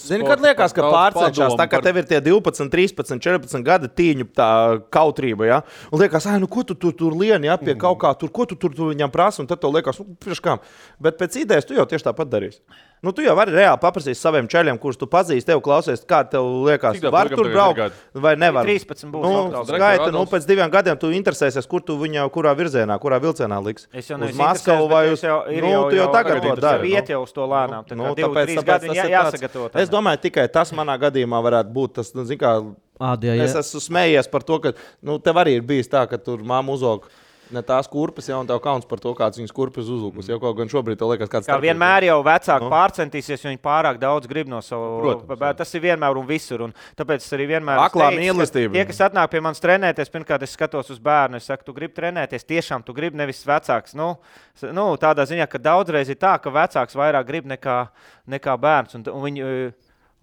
Zini, kad liekas, ka pārcenšās, tā kā tev ir tie 12, 13, 14 gadi tīņu tā kautrība, ja? Un liekas, nu ko tu tur lieni, ja, pie kaut kā, ko tu viņam prasa, un tad tev liekas, priekš kam. Bet pēc idejas tu jau tieši tāpat darīsi. Nu, tu jau vari reāli paprasīt saviem čeļiem, kurus tu pazīsti, tev klausies, kā tev liekas, Cik tā var puikam tur tagad ir braukt gadi? vai nevar. 13 būs. Nu, atkal. skaita, Adolfs. pēc 2 gadiem tu interesēsies, kur tu viņu, kurā virzienā, kurā vilcienā liks. Es jau Uz neesmu Maskavu interesēts, vai bet uz... es jau- ir Nu, tu jau tagad to dari. Iet jau uz to lēnām. Tā kā 2, tāpēc 3 gadi tas jā, ir jāsagatavo. tāds- Es domāju, tikai tas manā gadījumā varētu būt tas, nu, zini kā, Ādie, es esmu smējies par to, ka, nu, tev arī ir bijis tā, ka tur mamma uzvalk ne tās kurpes, ja, un tev kauns par to, kāds viņas kurpes uzlūkus. Jau kaut gan šobrīd tev liekas, kāds Kā vienmēr jau vecāki Nu. pārcentīsies, jo viņi pārāk daudz grib no savu. Protams, jā. Tas ir vienmēr un visur. Un tāpēc es arī vienmēr Aklā teicu, ka mīlestība. Tie, kas atnāk pie manis trenēties, pirmkārt, es skatos uz bērnu. Es saku, tu gribi trenēties, tiešām tu gribi nevis vecāks. Nu, tādā ziņā, ka daudzreiz ir tā, ka vecāks vairāk grib nekā bērns. Un viņi,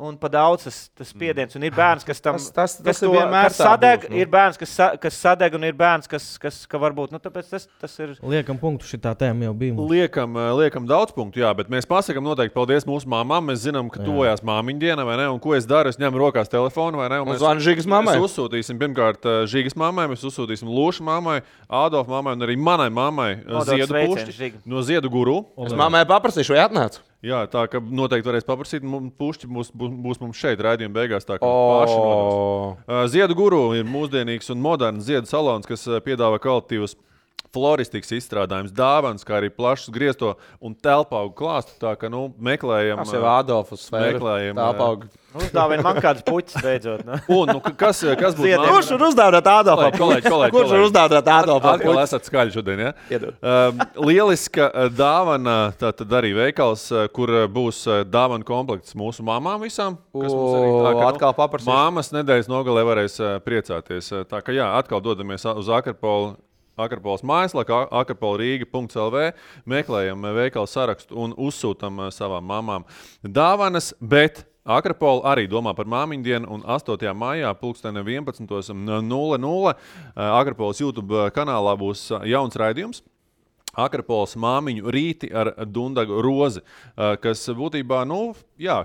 un pa daudz tas spiediens. Un ir bērns, kas tam Tas kas ir to- vienmēr kas tā sadeg, būs, nu. ir bērns, kas sadeg, un ir bērns, kas varbūt. Nu, tāpēc tas ir. liekam punktu šitā tēma jau bija. mums. Liekam daudz punktu, jā, bet mēs pasakām noteikti paldies mūsu māmām. Mēs zinām, ka tuvojās māmiņu diena, vai ne? Un ko es daru? Es ņemu rokās telefonu, vai ne? Un Un zvanu Žigas mammai. Mēs uzsūtīsim pirmkārt Žigas mammai, mēs uzsūtīsim Lūša mammai, Ādolfa mammai un arī manai mammai Nodot Ziedu sveicienu, pušķi Žiga. no Ziedu guru. Es mammai paprasīšu, vai atnāc? Jā, tā ka noteikti varēs paprasīt. Pušķi būs mums šeit raidījuma beigās. Tā kā paši nodos. Ziedu guru ir mūsdienīgs un moderns ziedu salons, kas piedāvā kvalitīvus floristikas izstrādājumus, dāvanas, kā arī plašs griesto un telpaugu klāstu. Tā kā meklējam, Tas jau Ādolfs sfēra. meklējam, Tāpauga. Uzdāvina man kādas puķis beidzot. Nu. Un kas būtu Ziediem. Kurš ir uzdāvināt Ādolfam? Kolēģi, Kurš ir uzdāvināt Ādolfam? Atkal esat skaļi šodien, ja? Iedod. Lieliska dāvana, tātad arī veikals, kur būs dāvana komplekts mūsu mamām visām. Kas mums arī tā, ka, Atkal paprasīšu. Māmas nedēļas nogalē varēs priecāties. Tā kā jā, atkal dodamies uz Akrapolas mājaslapā, akrapolrīga.lv, meklējam veikalu sarakstu un uzsūtam savām mamām dāvanas, bet Akrapola arī domā par māmiņu dienu, un 8. maijā 11.00 Akrapolas YouTube kanālā būs jauns raidījums. Akrapolas māmiņu rīti ar Dundagu Rozi, kas būtībā,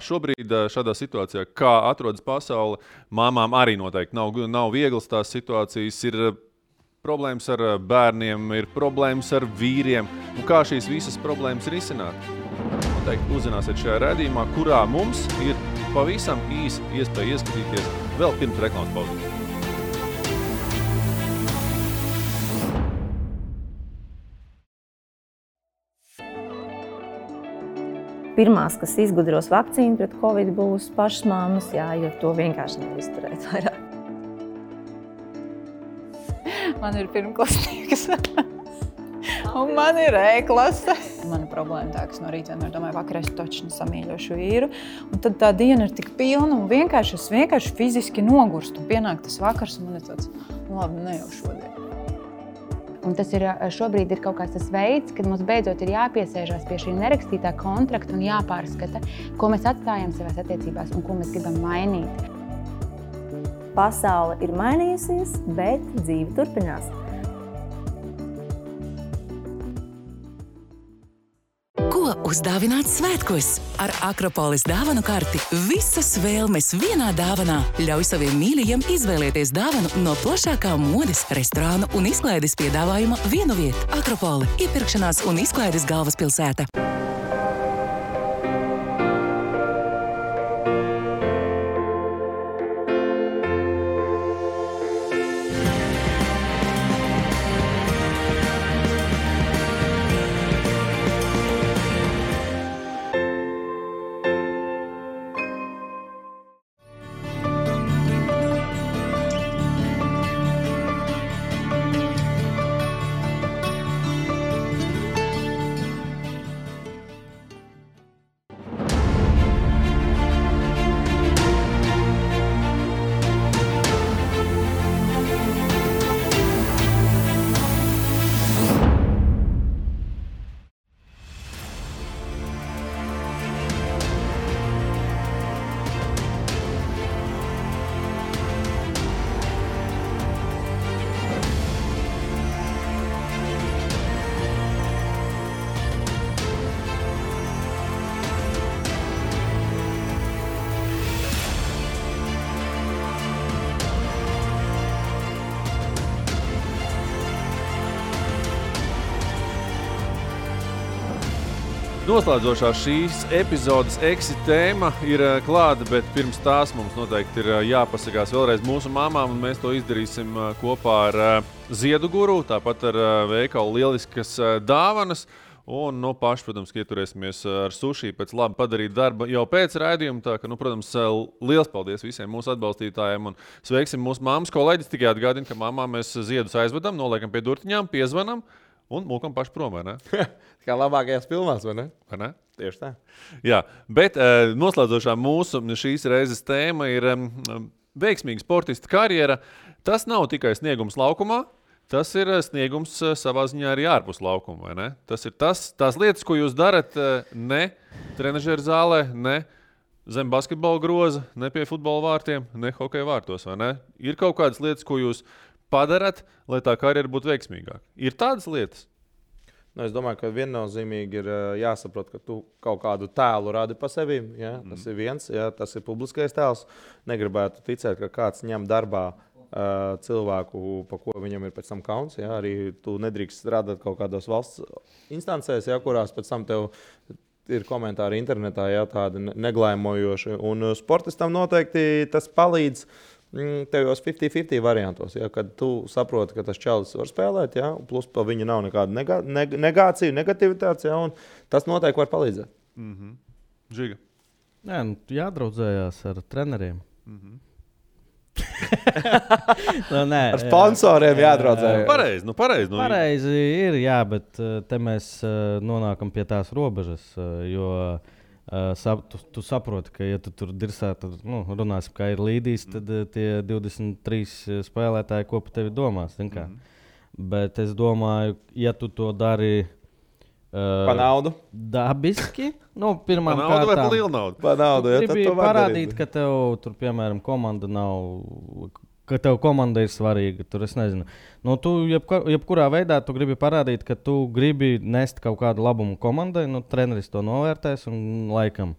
šobrīd šādā situācijā, kā atrodas pasaule, māmām arī noteikti nav vieglas tās situācijas, ir problēmas ar bērniem, ir problēmas ar vīriem, un kā šīs visas problēmas risināt. Noteikti uzzināsiet šajā raidījumā, kurā mums ir pavisam īsi iespēja ieskatīties vēl pirms reklāmas pauzes. Pirmās, kas izgudros vakcīnu pret covid, būs pašas mammas, jo to vienkārši nevar izturēt vairāk. Man ir pirmklasnieks. Un man ir E-klase. Mana problēma tā, ka es no rīta vienmēr domāju, vakarā es taču samīļošu vīru. Un tad tā diena ir tik pilna un es vienkārši fiziski nogurstu. Pienāk tas vakars un man ir tāds, labi, ne jau šodien. Un tas ir šobrīd ir kaut kāds tas veids, kad mums beidzot ir jāpiesēžās pie šī nerakstītā kontrakta un jāpārskata, ko mēs atstājam savās attiecībās un ko mēs gribam mainīt. Pasaule ir mainījusies, bet dzīve turpinās. Ko uzdāvināt svētkos? Ar Akropolis dāvanu karti visas vēlmes vienā dāvanā. Ļauj saviem mīļajiem izvēlēties dāvanu no plašākā modes, restorānu un izklaides piedāvājuma vienu vietu. Akropoli – iepirkšanās un izklaides galvaspilsēta. Noslēdzošā šīs epizodes tēma ir klāta, bet pirms tās mums noteikti ir jāpasakās vēlreiz mūsu mamām, un mēs to izdarīsim kopā ar Ziedu Guru, tāpat ar veikalu lieliskas dāvanas. Un, paši, protams, ieturēsimies ar suši pēc labi padarīt darba jau pēc raidījuma. Tā ka, protams, liels paldies visiem mūsu atbalstītājiem un sveiksim mūsu mammas kolēģis. Tikai atgādina, ka mamām mēs Ziedus aizvedam, noliekam pie durtiņām, piezvanam un mūkam paši prom, vai ne? Kā labākajās filmās, vai ne? Vai ne? Tieši tā. Jā, bet noslēdzošā mūsu šīs reizes tēma ir veiksmīga sportista karjera. Tas nav tikai sniegums laukumā. Tas ir sniegums savā ziņā arī ārpus laukuma, vai ne? Tas ir tās lietas, ko jūs darat ne trenažera zālē, ne zem basketbola groza, ne pie futbola vārtiem, ne hokeja vārtos, vai ne? Ir kaut kādas lietas, ko jūs padarat, lai tā karjera būtu veiksmīgāka. Ir tādas lietas? Es domāju, ka viennozīmīgi ir jāsaprot, ka tu kaut kādu tēlu radi pa sevi. Ja? Tas ir viens, ja? Tas ir publiskais tēls. Negribētu ticēt, ka kāds ņem darbā cilvēku, pa ko viņam ir pēc tam kauns. Ja? Arī tu nedrīkst strādāt kaut kādos valsts instancēs, ja? Kurās pēc tam tev ir komentāri internetā, ja? Tādi neglaimojoši. Un sportistam noteikti tas palīdz tevos 50-50 variantos, ja, kad tu saproti, ka tas čalis var spēlēt, ja, plus pa viņu nav nekāda negācija, negativitātes, ja, un tas noteikti var palīdzēt. Žiga. Jā, jādraudzējās ar treneriem. Nē, ar sponsoriem jādraudzējās. Pareizi. Pareizi ir, jā, bet te mēs nonākam pie tās robežas, jo tu saproti, ka, ja tu tur dirsā, tad runāsim, kā ir līdīs, tad tie 23 spēlētāji, ko par tevi domās. Bet es domāju, ja tu to dari pa naudu, dabiski, pirmām kārtām. Pa naudu vai pa lielu naudu? Pa naudu, ja, tad to parādīt, ka tev tur, piemēram, komanda nav, ka tev komanda ir svarīga. Tur es nezinu. Tu jebkurā veidā tu gribi parādīt, ka tu gribi nest kaut kādu labumu komandai. Treneris to novērtēs un laikam.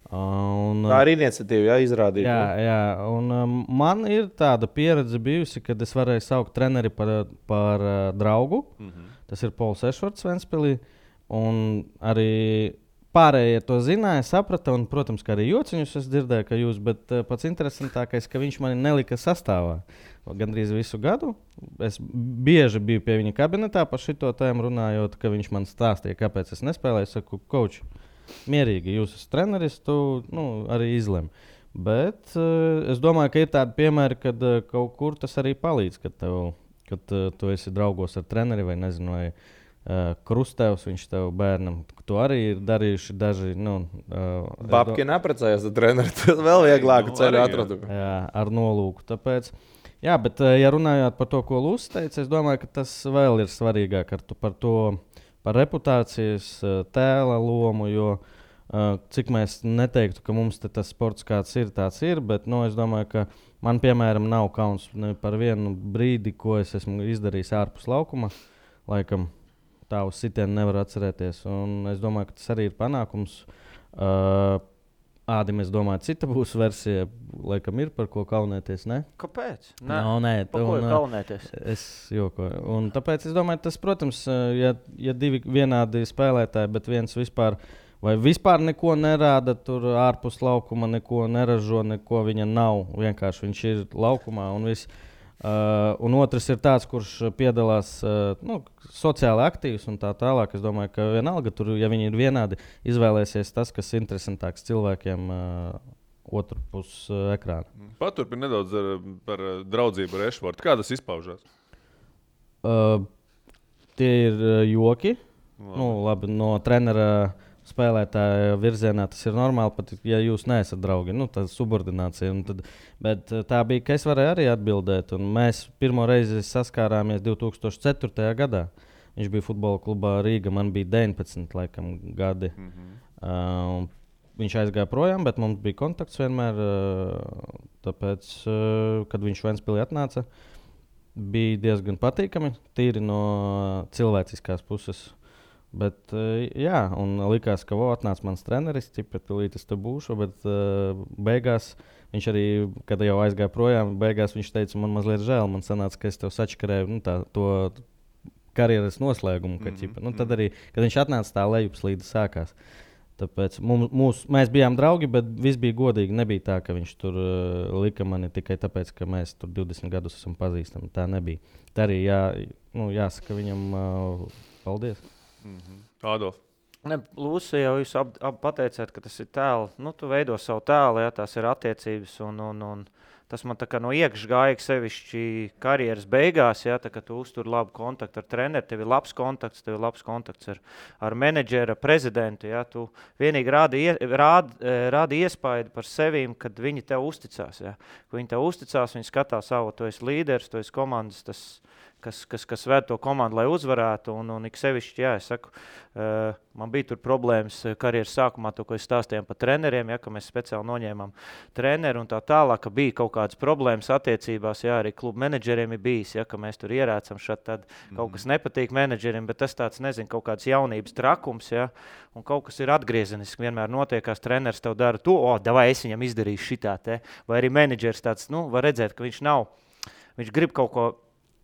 Tā ir iniciatīva, jā, izrādīt. Jā. Un man ir tāda pieredze bijusi, kad es varēju saukt treneri par draugu. Tas ir Pols Ešvarts Ventspilī. Un arī pārējie to zināja, saprata, un, protams, ka arī jociņus es dzirdēju, ka jūs, bet pats interesantākais, ka viņš mani nelika sastāvā gandrīz visu gadu. Es bieži biju pie viņa kabinetā par šito tēmu runājot, ka viņš man stāstīja, kāpēc es nespēlēju. Es saku, coach, mierīgi, jūs esat treneris, tu arī izlem. Bet es domāju, ka ir tādi piemēri, kad kaut kur tas arī palīdz, kad tu esi draugos ar treneri vai nezinu, vai Krustevs, viņš tev bērnam. To arī ir darījuši daži. Babki neprecējās ar treneri, tad vēl vieglāku ceļu atradu. Jā, ar nolūku. Tāpēc, jā, bet ja runājot par to, ko Lūsis teica, es domāju, ka tas vēl ir svarīgāk par reputācijas tēla lomu, jo cik mēs neteiktu, ka mums tas sports kāds ir, tāds ir, bet es domāju, ka man, piemēram, nav kauns par vienu brīdi, ko es esmu izdarījis ārpus laukuma, laikam. tā uz sitienu nevaru atcerēties. Un es domāju, ka tas arī ir panākums. Ādim, es domāju, cita būs versija, laikam ir par ko kaunēties, ne? Kāpēc? Nē, par ko ir kaunēties? Es jokoju. Un tāpēc es domāju, tas, protams, ja divi vienādi spēlētāji, bet viens vispār neko nerāda, tur ārpus laukuma neko neražo, neko viņa nav. Vienkārši viņš ir laukumā un viss. Un otrs ir tāds, kurš piedalās sociāli aktīvs un tā tālāk. Es domāju, ka vienalga tur, ja viņi ir vienādi, izvēlēsies tas, kas ir interesantāks cilvēkiem otru pus ekrāna. Paturpini nedaudz par draudzību ar Ešvortu. Kā tas izpaužās? Tie ir joki. Labi, no trenera spēlētāja virzienā tas ir normāli, pat ja jūs neesat draugi. Tā ir subordinācija. Bet tā bija, ka es varēju arī atbildēt. Un mēs pirmo reizi saskārāmies 2004. gadā. Viņš bija futbola klubā Rīga, man bija 19 gadi. Viņš aizgāja projām, bet mums bija kontakts vienmēr. Tāpēc, kad viņš Ventspilī atnāca, bija diezgan patīkami, tīri no cilvēciskās puses. Bet, un likās, ka atnāca mans treneris, tūlīt es te būšu, bet beigās viņš arī, kad jau aizgāja projām, beigās viņš teica, man mazliet žēl, man sanāca, ka es tev sačakarēju to karjeras noslēgumu. Tad arī, kad viņš atnāca, tā lejupslīde sākās. Tāpēc mēs bijām draugi, bet viss bija godīgi. Nebija tā, ka viņš tur lika mani tikai tāpēc, ka mēs tur 20 gadus esam pazīstami. Tā nebija. Tā arī jāsaka viņam paldies. Ādolf. Lūsija, jau jūs pateicāt, ka tas ir tēls. Tu veido savu tēlu, tās ir attiecības. Un tas man tā kā no iekšā gāja sevišķi karjeras beigās, tā kā tu uztur labu kontaktu ar treneri, tev ir labs kontakts ar menedžeru, prezidentu. Tu vienīgi rādi iespaidu par sevīm, kad viņi tev uzticās. Kad viņi tev uzticās, viņi skatās savu, tu esi līderis, tu esi komandas, kas ved to komandu, lai uzvarētu. Un ik sevišķi, es saku, man bija tur problēmas karjeras sākumā, to, ko es stāstījām par treneriem, ka mēs speciāli noņēmām treneru un tā tālāk, ka bija kaut kādas problēmas attiecībās, arī klubu menedžeriem ir bijis, ka mēs tur ierēcam šad, tad kaut kas nepatīk menedžeriem, bet tas tāds, nezinu, kaut kāds jaunības trakums, un kaut kas ir atgriezeniski, vienmēr notiekās, treneris tev dara to, davai es viņam izdarīšu šitā, vai arī menedžers tāds, var redzēt, ka viņš grib kaut ko,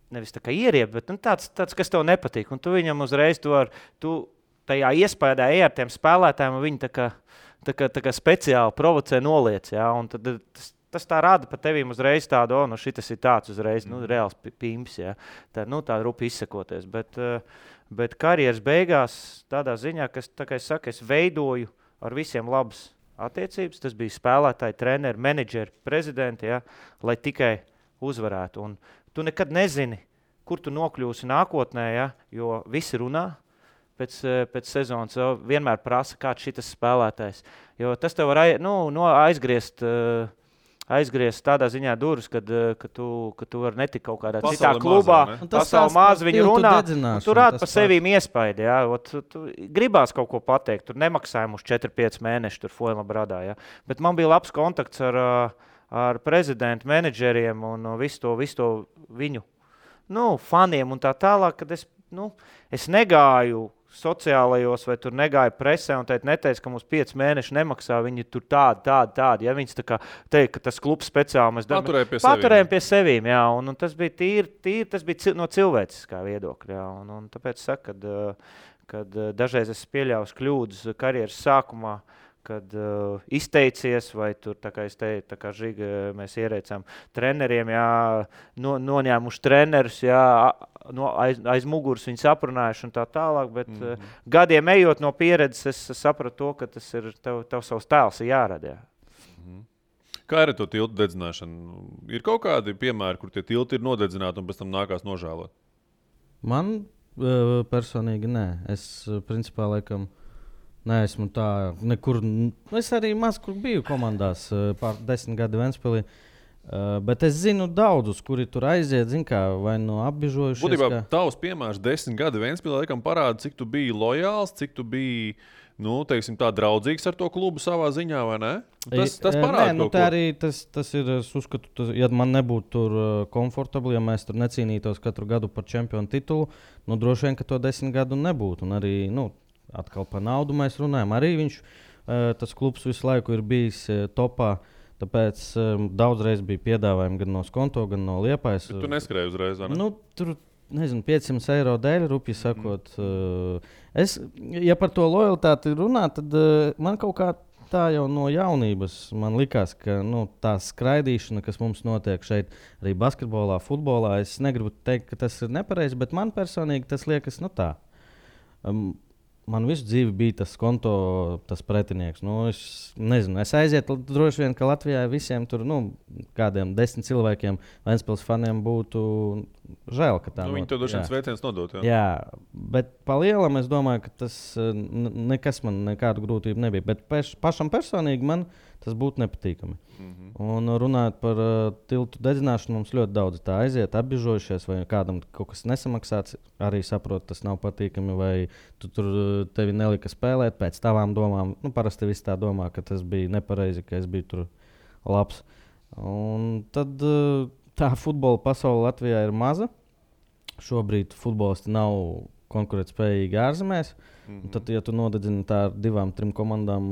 nevis tā kā ieriebt, bet tāds, kas tev nepatīk. Un tu viņam uzreiz tu tajā iespējā ar tiem spēlētājiem, un viņi tā kā speciāli provocē noliec. Un tad tas tā rada par tevīm uzreiz tādu, šitas ir tāds uzreiz, reāls pimps. Tā rupi izsakoties. Bet karjeras beigās tādā ziņā, kā es saku, es veidoju ar visiem labas attiecības. Tas bija spēlētāji, treneri, menedžeri, prezidenti, lai tikai uzvarētu. Un tu nekad nezini, kur tu nokļūsi nākotnē, jo visi runā pēc sezonas. Vienmēr prasa, kāds šitas spēlētājs. Jo tas tev var aizgriezt tādā ziņā durvis, kad tu vari netikt kaut kādā citā klubā. Pasauli maz viņi runā, un tu rādi par sevīm iespaidu. Tu gribās kaut ko pateikt, tur nemaksājumu uz 4-5 mēneši tur Fuenlabradā. Bet man bija labs kontakts ar prezidentu, menedžeriem un visu to viņu faniem un tā tālāk, kad es negāju sociālajos vai tur negāju presē un neteicu, ka mums 5 mēneši nemaksā, viņi tur tādi. Viņas tā kā teikt, ka tas klubs speciāli mēs paturējam pie sevīm. Un tas bija tīri, tas bija no cilvēciskā viedokļa. Un tāpēc saku, kad dažreiz es pieļauju kļūdas karjeras sākumā, kad izteicies, vai tur, tā kā es teicu, tā kā Žiga mēs ierēcām treneriem, noņēmuši trenerus, aiz muguras viņi saprunājuši un tā tālāk, bet gadiem ejot no pieredzes, es sapratu to, ka tas ir tev savs tēls ir jārada. Kā ir to tiltu dedzināšana? Ir kaut kādi piemēri, kur tie tilti ir nodedzināti un pēc tam nākās nožēlot? Man personīgi nē. Es principā laikam neesmu tā nekur. Es arī maz kur biju komandās pār 10 gadu Ventspilī. Bet es zinu daudzus, kuri tur aiziet, vai no apbižojušies. Būtībā tavs piemērs 10 gadu Ventspilī laikam parāda, cik tu biji lojāls, cik tu biji, teiksim tā, draudzīgs ar to klubu savā ziņā, vai ne? Tas parāda kaut ko. Arī tas ir, es uzskatu, ja man nebūtu tur komfortabli, ja mēs tur necīnītos katru gadu par čempionu titulu, droši vien, ka to 10 gadu nebūtu. Un arī, atkal par naudu mēs runājam. Arī viņš, tas klubs visu laiku ir bijis topā, tāpēc daudzreiz bija piedāvājumi gan no Skonto, gan no Liepājas. Tu neskrēji uzreiz, vai ne? Tur, nezinu, 500 eiro dēļ, rupi sakot. Ja par to lojalitāti runā, tad man kaut kā tā jau no jaunības man likās, ka tā skraidīšana, kas mums notiek šeit, arī basketbolā, futbolā, es negribu teikt, ka tas ir nepareizi, bet man personīgi tas liekas tā. Man visu dzīvi bija tas Skonto, tas pretinieks. Es nezinu, es aizietu droši vien, ka Latvijā visiem tur, kādiem 10 cilvēkiem, Ventspils faniem būtu žēl, ka tā viņi to droši vien sveiciens nodot. Jā, bet pa lielam es domāju, ka tas nekas man nekādu grūtību nebija. Bet pašam personīgi man tas būtu nepatīkami. Un runājot par tiltu dedzināšanu, mums ļoti daudz tā aiziet, apbižojušies, vai kādam kaut kas nesamaksāts, arī saprot, tas nav patīkami, vai tevi nelika spēlēt pēc tavām domām. Parasti visi tā domā, ka tas bija nepareizi, ka es biju tur labs. Un tad tā futbola pasaule Latvijā ir maza. Šobrīd futbolisti nav konkurētspējīgi ārzemēs. Tad, ja tu nodedzini tā ar 2-3 komandām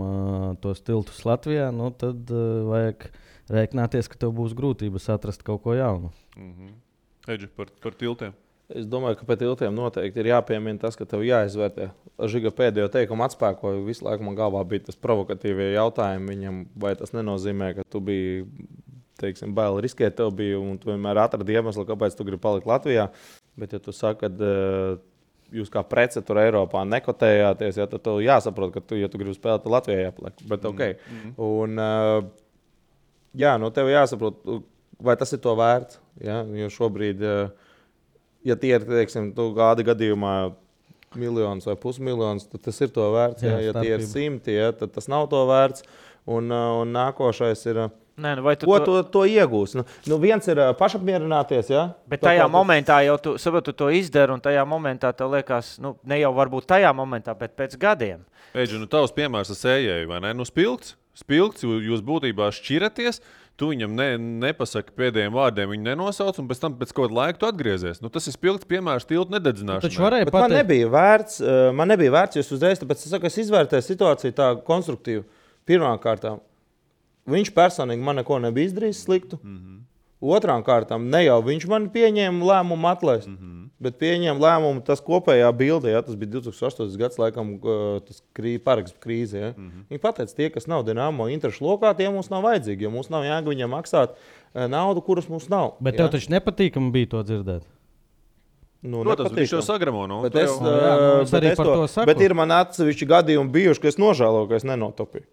tos tiltus Latvijā, tad vajag rēķināties, ka tev būs grūtības atrast kaut ko jaunu. Eģi, par tiltiem. Es domāju, ka pēc tiltiem noteikti ir jāpiemina tas, ka tev jāizvērtē. Žiga pēdējo teikumu atspēkoja, visu laiku man galvā bija tas provokatīvie jautājumi viņam, vai tas nenozīmē, ka tu biji, baili riskēt tev bija, un tu vienmēr atradi iemeslu, kāpēc tu gribi palikt Latvijā. Bet, ja tu saki, ka jūs kā prece tur Eiropā nekotējāties, tad tev jāsaprot, ka ja tu gribi spēlēt, tad Latvijā jāpaliek. Bet Un, tev jāsaprot, vai tas ir to vērts. Ja? Jo šobrīd, ja tie ir, tu gada gadījumā miljonus vai pusmiljonus, tad tas ir to vērts. Ja tie ir 100, tad tas nav to vērts. Un nākošais ir... to iegūs? Viens ir pašapmierināties, ja? Bet tajā momentā jau tu to izdari, un tajā momentā tev liekas, ne jau varbūt tajā momentā, bet pēc gadiem. Eģi, tavs piemērs ar sējēju, vai ne? Spilgts, jūs būtībā šķiraties, tu viņam nepasaki pēdējiem vārdiem, viņu nenosauc, un pēc tam pēc kaut laika tu atgriezies. Tas ir spilgts piemērs tiltu nededzināšanai. Man nebija vērts, jo es uzreiz, tāpēc es izvērtēju situāciju tā konstruktīvi. Pirmām kārtām. Viņš personīgi man neko nebija izdarījis sliktu. Otrām kārtām, ne jau viņš man pieņēma lēmumu atlaist, bet pieņēma lēmumu tas kopējā bildē, tas bija 2008. gads, laikam, tas parakstu krīze. Ja? Viņi pateica, tie, kas nav Dinamo interešu lokā, tie mums nav vajadzīgi, jo mums nav jēga viņam maksāt naudu, kuras mums nav. Bet tev taču nepatīkami bija to dzirdēt? Protams, viņš to sagramo. Bet ir man atsevišķi gadījumi bijuši, ka es nožēloju, ka es nenotopīju.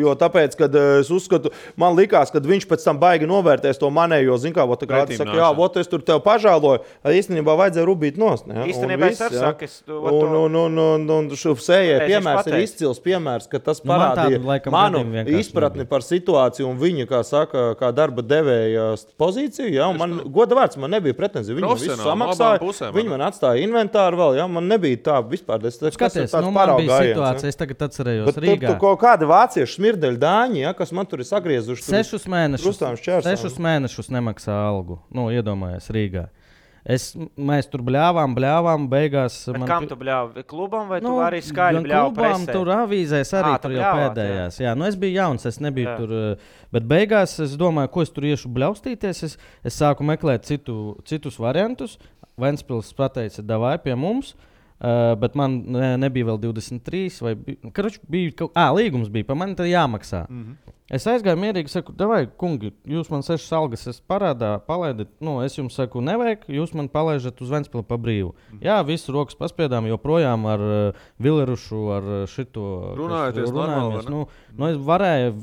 Jo tāpēc, kad es uzskatu, man likās, ka viņš pēc tam baigi novērtēs to manējo, es tur tev pažāloju, īstenībā vajadzēja rubīt nost. Īstenībā es arī saku, un sējē piemērs ir izcils piemērs, ka tas parādīja manu izpratni par situāciju un viņa, kā saka, kā darba devēja pozīciju, ja, un man goda vārds, man nebija pretenzija, viņi man visu samaksāja, viņi man atstāja inventāru vēl, ja, man nebija tā vispār, skaties, man bija situācija, es tagad atcerējos Rīgā. Vācieši smirdeļu dāņi, ja, kas man tur ir sagriezuši. 6 mēnešus nemaksā algu. Iedomājies Rīgā. Mēs tur bļāvām, beigās... Kam tu bļāvi? Klubam vai tu arī skaļi bļāvi presē? Klubam, tur avīzēs arī tur jau pēdējās. Jā, es biju jauns, es nebiju tur... Bet beigās es domāju, ko es tur iešu bļaustīties. Es sāku meklēt citus variantus. Ventspils pateica, davai pie mums. Bet man nebija vēl 23, vai bija līgums bija, par mani tad jāmaksā. Es aizgāju mierīgi, saku, davai, kungi, jūs man 6 algas palaidat, es jums saku, nevajag, jūs man palaižat uz Ventspili pa brīvu. Jā, visu rokas paspiedām, joprojām ar Vilerušu, ar šito... Runājamies.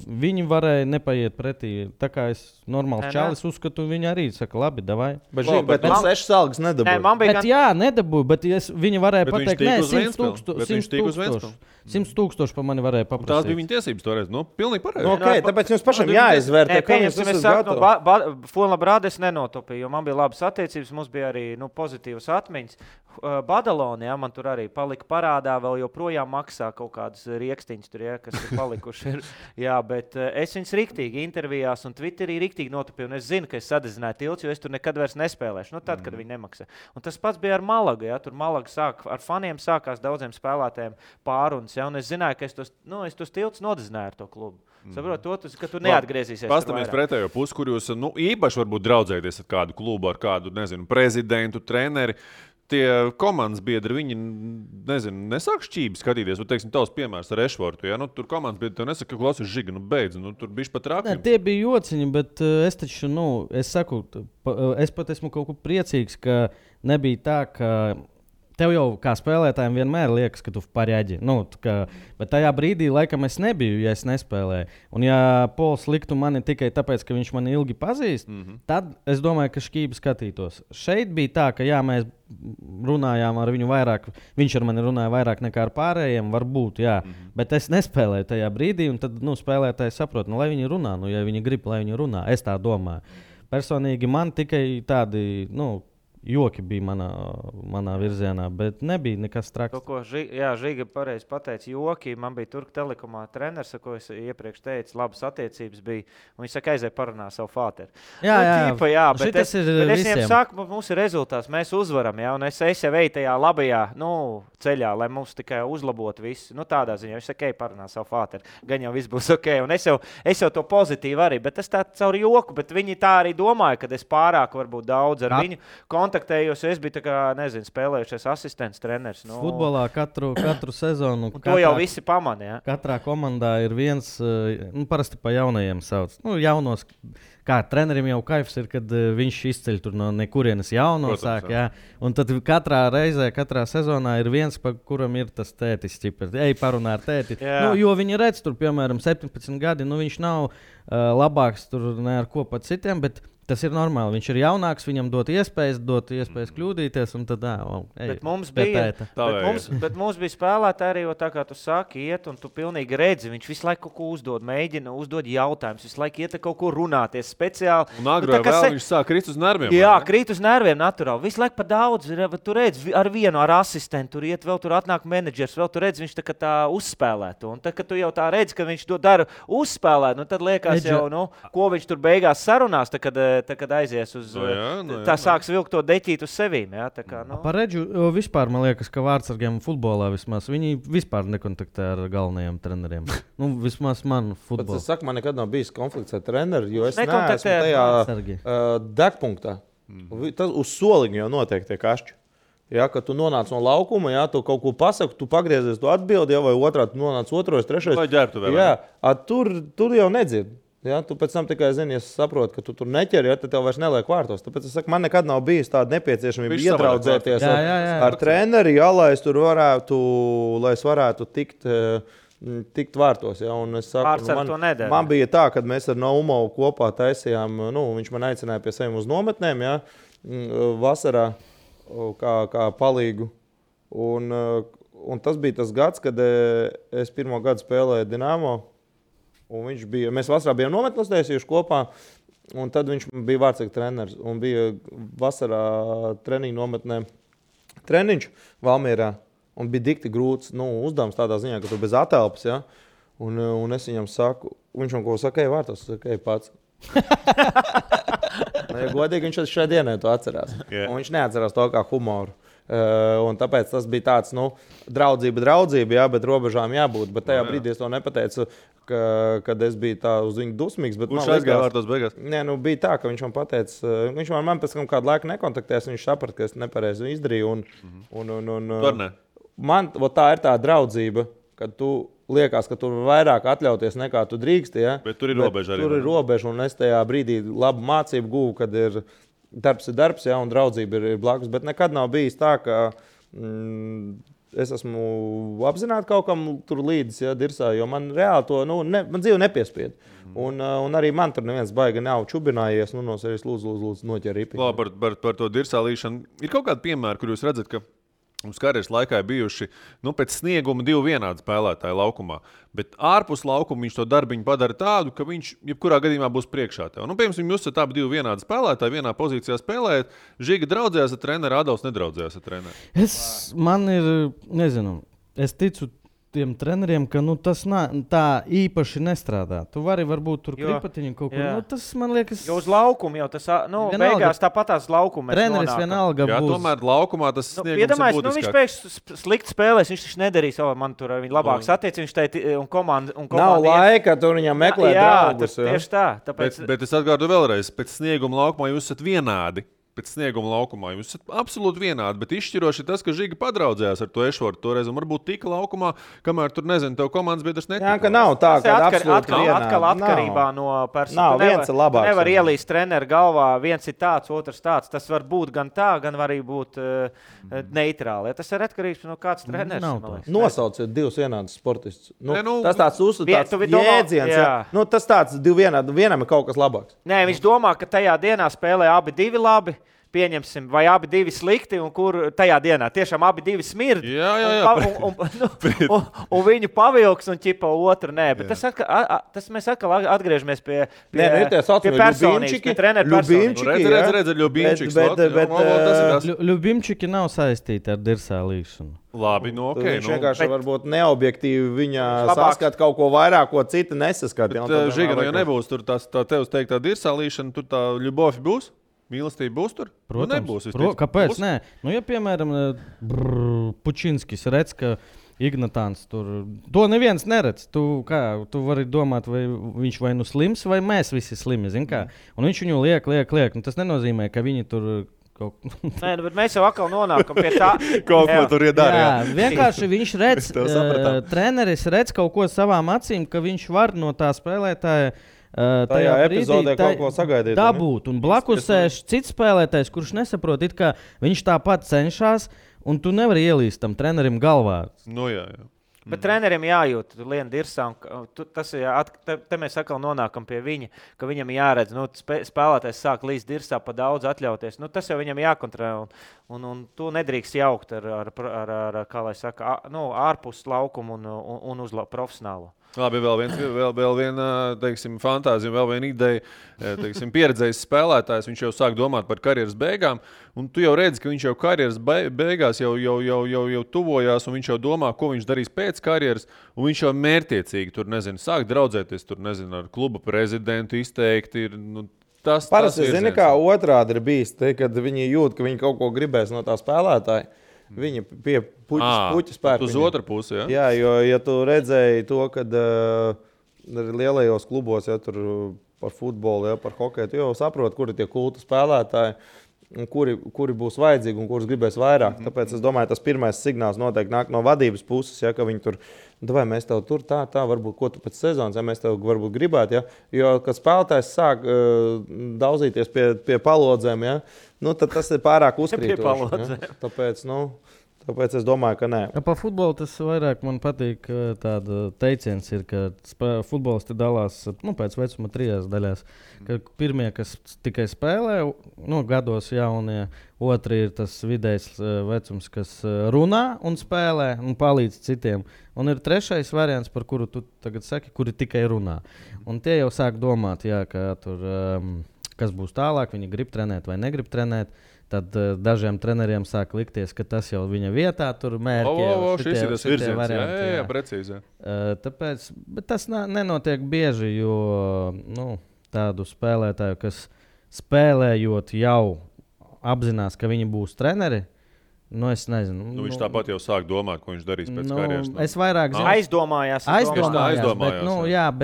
Viņi varēja nepaiet pretī, tā kā es normāls čalis uzskatu, viņi arī saka, labi, davai. Bet man 6 algas nedabūja. Nedabūja, bet viņi varēja pateikt, 100 000 pa mani varēja paprasīt. Tās bija viņa tiesības toreiz, pilnīgi pareizi. Tāpēc jums pašam jāizvērtē, kā jūs esat gatavi. Fonlabrāde es nenotopīju, jo man bija labas attiecības, mums bija arī pozitīvas atmiņas. Badaloni, ja, man tur arī palika parādā, vēl joprojām maksā kaut kādas riekstiņas, tur, ja, kas ir palikuši. Jā, bet es viņus riktīgi intervijās un Twitterī riktīgi notupīju, un es zinu, ka es sadedzināju tilts, jo es tur nekad vairs nespēlēšu, tad, kad viņi nemaksā. Un tas pats bija ar Malagu, ja, tur Malaga ar faniem sākās daudziem spēlētājiem pārunas, ja, un es zināju, ka es tos tilts nodedzināju ar to klubu. Saprot, ka tu neatgriezīsies. Pastāmies pretējo pusi, kur jūs īpaši varbūt draudzēties ar kādu klubu, ar kādu, prezidentu, treneri. Tie komandas biedri, viņi, nesāk šķībi skatīties. Teiksim, tavs piemērs ar Ešvortu, ja? Tur komandas biedri tev nesaka, ka klausies Žiga, beidz, tur bišķi pat rākļi. Tie bija jociņi, bet es taču, es saku, es pat esmu kaut ko priecīgs, ka nebija tā, ka tev jau kā spēlētājiem vienmēr liekas, ka tu pareģi. Bet tajā brīdī, laikam, es nebiju, ja es nespēlēju. Un ja Pols liktu mani tikai tāpēc, ka viņš mani ilgi pazīst, tad es domāju, ka šķībi skatītos. Šeit bija tā, ka jā, mēs runājām ar viņu vairāk, viņš ar mani runāja vairāk nekā ar pārējiem, varbūt, jā. Bet es nespēlēju tajā brīdī, un tad spēlētāji saprot, lai viņi runā, ja viņi grib, lai viņi runā. Es tā domāju. Personīgi man tikai tādi, joki bija manā virzienā, bet nebija nekas traks. Žiga pareizi pateica, joki. Man bija Turku Telekomā treneris, ko es iepriekš teicu, labas attiecības bija. Un viņš saka, aizēja parunā savu fāteru. Bet es viņiem saku, mums ir rezultāts, mēs uzvaram, ja, un es jau eju tajā labajā ceļā, lai mums tikai uzlabotu visu. Tādā ziņā viņš saka, ej parunā savu fāteru. Gan jau viss būs ok. Un es jau to pozitīvi arī, bet tas tā caur joku, bet viņi tā arī domāja, ka es pārāk varbūt daudz ar viņu kontaktējos, es biju spēlējušies asistents treneris. Futbolā katru sezonu. To jau visi pamana. Ja? Katrā komandā ir viens, parasti pa jaunajiem sauc. Jaunos, kā trenerim jau kaifs ir, kad viņš izceļ tur no nekurienes jauno sāk. Jā. Un tad katrā reizē, katrā sezonā ir viens, pa kuram ir tas tētis. Ej parunā ar tēti. Jo viņi redz tur, piemēram, 17 gadi, viņš nav labāks tur ne ar ko pat citiem, bet tas ir normāli. Viņš ir jaunāks, viņam dot iespējas kļūdīties. Tad, bet mums bija spēlētāji arī, tā kā tu saki, iet, un tu pilnīgi redzi. Viņš visu laiku kaut ko uzdod, mēģina uzdod jautājumus, visu laiku iet kaut ko runāties speciāli. Un agrāk viņš sāk krīt uz nerviem. Jā, krīt uz nerviem naturāli. Visu laiku pa daudz. Tu redzi ar vienu, ar asistentu, tur iet, vēl tur atnāk menedžers, vēl tu redzi, viņš tā uzspēlētu. Un tad, kad tu jau tā redzi, ka viņš to dara uzspēlēt, tad liekas jau, ko viņš tur beigās sarunās, kad aizies uz tā sāks vilkt to deķīt uz sevīm. Ja? Par Redžu vispār man liekas, ka vārdsargiem futbolā vismaz viņi vispār nekontaktē ar galvenajiem treneriem. Vismaz man futbolā. Es saku, man nekad nav bijis konflikts ar treneri, jo es neesmu tajā degpunktā. Tas uz soliņa jau notiek tie kašķi. Ja, kad tu nonāc no laukuma, ja, tu kaut ko pasaki, tu pagriezies, tu atbildi, ja, vai otrā tu nonāc otrais, trešais. Vai ģērbtu vēl? Jā, tur jau nedzird. Ja, tu pēc tam tikai zini, ja saproti, ka tu tur neķeri, ja, tad tev vairs neliek vārtos. Tāpēc es saku, man nekad nav bijis tāda nepieciešamība iedraudzēties ar treneri, ja, lai es varētu tikt vārtos. Ja, un es saku, man bija tā, kad mēs ar Naumovu kopā taisījām, viņš man aicināja pie sevi uz nometnēm, ja, vasarā kā palīgu. Un tas bija tas gads, kad es pirmo gadu spēlēju Dinamo. Un mēs vasarā bijām nometnēs taisījuši kopā, un tad viņš bija vārdsarga treneris. Un bija vasarā treniņu nometnē treniņš Valmierā, un bija dikti grūts uzdevums tādā ziņā, ka tu bez atelpas, ja? Un es viņam saku, viņš man ko saka, ej vārtos, saka, ej pats. Ja godīgi, viņš šai dienai to atcerās. Yeah. Un viņš neatcerās to kā humoru. Un tāpēc tas bija tāds, draudzība, jā, bet robežām jābūt. Bet tajā brīdī es to nepateicu, kad es biju tā uz viņu dusmīgs. Viņš aizgāja vārtos beigās? Nē, bija tā, ka viņš man pateica, viņš man pēc kādu laiku nekontaktēs, viņš saprata, ka es nepareizi izdarīju. Man tā ir tā draudzība, kad tu liekas, ka tur vairāk atļauties nekā tu drīksti. Ja? Bet tur ir robeža arī. Tur ir robeža, un es tajā brīdī labu mācību guvu, kad ir darbs, ja, un draudzība ir blakus. Bet nekad nav bijis tā, ka es esmu apzināti kaut kam tur līdzi, ja, dirsā, jo man reāli to, man dzīve nepiespied. Un arī man tur neviens baigi nav čubinājies, no sevis lūdzu noķer ripi. Par to dirsā līšanu. Ir kaut kādi piemēri, kur jūs redzat, ka Mums karjeras laikā ir bijuši pēc snieguma 2 vienādi spēlētāji laukumā. Bet ārpus laukuma viņš to darbiņu padara tādu, ka viņš jebkurā gadījumā būs priekšā tev. Piemēram, jūs esat abi 2 vienādi spēlētāji, vienā pozīcijā spēlējat. Žiga draudzējās ar treneri, Adolfs nedraudzējās ar treneri. Man ir, nezinu, es ticu tiem treneriem, ka tas tā īpaši nestrādā. Tu vari varbūt tur kripatiņu kaut kur. Tas man liekas... Jo uz laukumu jau tas, beigās tāpatās laukuma. Treneris vienalga būs. Tomēr laukumā tas sniegums ir būtiskāk. Viņš pēkšņi slikti spēlēs, viņš taču nedarīs, man tur viņa labāks attiecības, un komanda... Nav laika, tur viņam meklēt draugus. Tieši tā. Bet es atgārdu vēlreiz, pēc snieguma laukumā jūs esat vienādi. Pēc snieguma laukumā jūs esat absolūti vienādi, bet izšķiroši ir tas, ka Žiga padraudzējās ar to Ešvortu toreiz, un varbūt tika laukumā, kamēr tur, nezinu, tev komandas biedrs netika. Jā, ka nav tā, ka absolūti vienādi. Atkal atkarībā no personas. Nav, viens ir labāks. Tu nevar ielīst treneru galvā, viens ir tāds, otrs tāds. Tas var būt gan tā, gan var arī būt neitrāli. Tas ir atkarīgs no kāds treneris. Nosauciet 2 vienādus sportistus. Tas tāds jēdziens. Tas tāds 2 vienādi, vienam ir kaut kas labāks. Nē, viņš domā, ka tajā dienā spēlē abi 2 labi. Pieņemsim, vai abi 2 slikti, un kur tajā dienā tiešām abi 2 smird. Un viņu pavilks, un ķipa otru nē. Bet tas mēs atkal atgriežamies pie personības, pie treneru personības. Redz, Ļubimčiki nav saistīti ar dirsā līkšanu. Labi, viņš vienkārši varbūt neobjektīvi viņa saskat kaut ko vairāk, ko citi nesaskat. Žiga, ja nebūs tur tā tevs teiktā dirsā līkšana, tur tā ļubofi būs? Mīlestība būs tur? Protams. Kāpēc? Nē. Ja, piemēram, Pučinskis redz, ka Ignatāns tur... To neviens neredz. Tu vari domāt, vai viņš vai slims, vai mēs visi slimi. Un viņš viņu liek. Tas nenozīmē, ka viņi tur... Nē, bet mēs jau atkal nonākam pie tā. Kaut ko tur iedara. Vienkārši viņš redz, treneris redz kaut ko savām acīm, ka viņš var no tā spēlētāja tajā epizodē kaut ko sagaidīt. Dabūt. Un blakus sēž cits spēlētājs, kurš nesaprot, ka viņš tāpat cenšas, un tu nevari ielīst tam trenerim galvā. Jā. Bet trenerim jājūt, lien dirsā, te mēs atkal nonākam pie viņa, ka viņam jāredz, spēlētājs sāk līdz dirsā pa daudz atļauties. Tas jau viņam jākontrolē, un to nedrīkst jaukt ar kā lai saka, ārpus laukumu un uz profesionālo. Labi, vēl viena, teiksim, fantāzija, vēl viena ideja, teiksim, pieredzējis spēlētājs, viņš jau sāk domāt par karjeras beigām, un tu jau redzi, ka viņš jau karjeras beigās jau tuvojās, un viņš jau domā, ko viņš darīs pēc karjeras, un viņš jau mērķiecīgi tur, sāk draudzēties tur, ar kluba prezidentu izteikti ir, Parasti, zini, kā otrādi ir bijis, kad viņi jūt, ka viņi kaut ko gribēs no tā spēlētāja. Viņa pie puķa spēka. Uz otru pusi, ja? Jā, jo, ja tu redzēji to, kad lielajos klubos, ja tur par futbolu, ja, par hokeju, tu jau saproti, kuri tie kultu spēlētāji, un kuri būs vajadzīgi un kurus gribēs vairāk. Tāpēc es domāju, tas pirmais signāls noteikti nāk no vadības puses, ja, ka viņi tur, vai mēs tev tur tā, varbūt, ko tu pēc sezonas, ja mēs tev varbūt gribētu, ja, jo, kad spēlētājs sāk daudzīties pie palodzēm, ja, tad tas ir pārāk uzkrītoši. Ja. Tāpēc es domāju, ka nē. Par futbolu tas vairāk man patīk. Tāda teiciens ir, ka futbolisti dalās pēc vecuma 3 daļās. Ka pirmie, kas tikai spēlē, gados jaunie, otri ir tas vidējs vecums, kas runā un spēlē un palīdz citiem. Un ir trešais variants, par kuru tu tagad saki, kuri tikai runā. Un tie jau sāk domāt, jā, ka tur, kas būs tālāk, viņi grib trenēt vai negrib trenēt. Tad dažiem treneriem sāk likties, ka tas jau viņa vietā tur mērķi. Šis ir tas virziens. Jā, precīzi. Tāpēc, bet tas nenotiek bieži, jo tādu spēlētāju, kas spēlējot jau apzinās, ka viņi būs treneri, es nezinu. Viņš tāpat jau sāk domāt, ko viņš darīs pēc karjeras. Es vairāk zinu. Aizdomājās.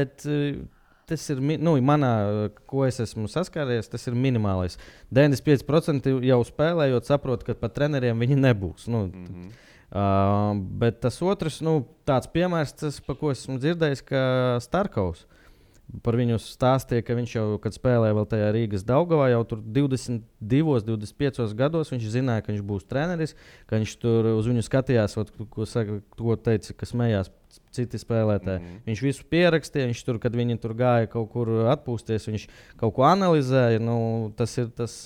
Bet tas ir, manā, ko es esmu saskāries, tas ir minimālais. 95% jau spēlējot, saprot, ka pat treneriem viņi nebūs. Bet tas otrs, tāds piemērs, par ko esmu dzirdējis, ka Starkovs. Par viņu stāstīja, ka viņš jau, kad spēlēja vēl tajā Rīgas Daugavā, jau tur 22, 25 gados viņš zināja, ka viņš būs treneris, ka viņš tur uz viņu skatījās, ko teica, ka smējās citi spēlētāji. Viņš visu pierakstīja, viņš tur, kad viņi tur gāja kaut kur atpūsties, viņš kaut ko analizēja. Tas ir tas,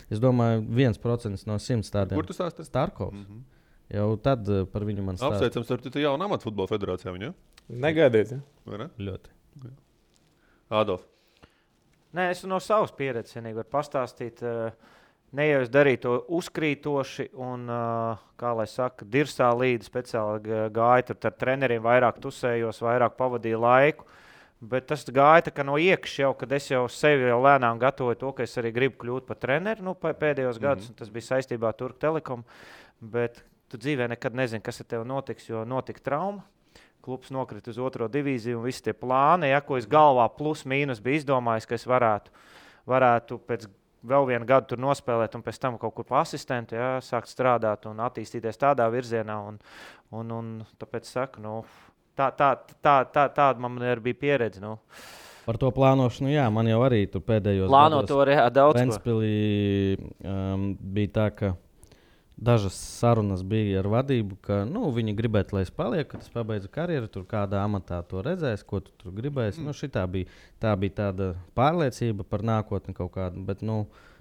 es domāju, 1% no 100 tādiem. Kur tu stāstīji? Starkovs. jau tad par viņu man stāsta. Apsveicams, ar tu jaunu amatu futbola federācijā viņa? Negaidiet, ja? Vai ne? Ļoti. Ādolf. Nē, es no savas pieredzes vienīgi varu pastāstīt. Ne jau es darīju to uzkrītoši un, kā lai saka, dirsā līdzi speciāli gāju tur ar treneriem, vairāk tusējos, vairāk pavadīju laiku. Bet tas gāja tā kā no iekšā jau, kad es jau sevi jau lēnām gatavoju to, ka es arī gribu kļūt par treneru pēdējos gadus, un tas bija saistībā ar Turku Telekom. Bet tu dzīvē nekad nezini, kas ar tevi notiks, jo notika trauma. Klubs nokrita uz 2. divīziju un visi tie plāni, ko es galvā plus mīnus biju izdomājis, ka es varētu pēc vēl vienu gadu tur nospēlēt un pēc tam kaut kur pa asistentu, sākt strādāt un attīstīties tādā virzienā. Un tāpēc saku, tāda man arī bija pieredze. Par to plānošanu, jā, man jau arī tur pēdējos gados. Plāno to arī daudz ko. Ventspilī bija tā, ka dažas sarunas bija ar vadību, ka viņi gribētu, lai es palieku, kad es pabeidzu karjeru, tur kādā amatā to redzēs, ko tu tur gribēsi. Tā bija tāda pārliecība par nākotni kaut kādu, bet,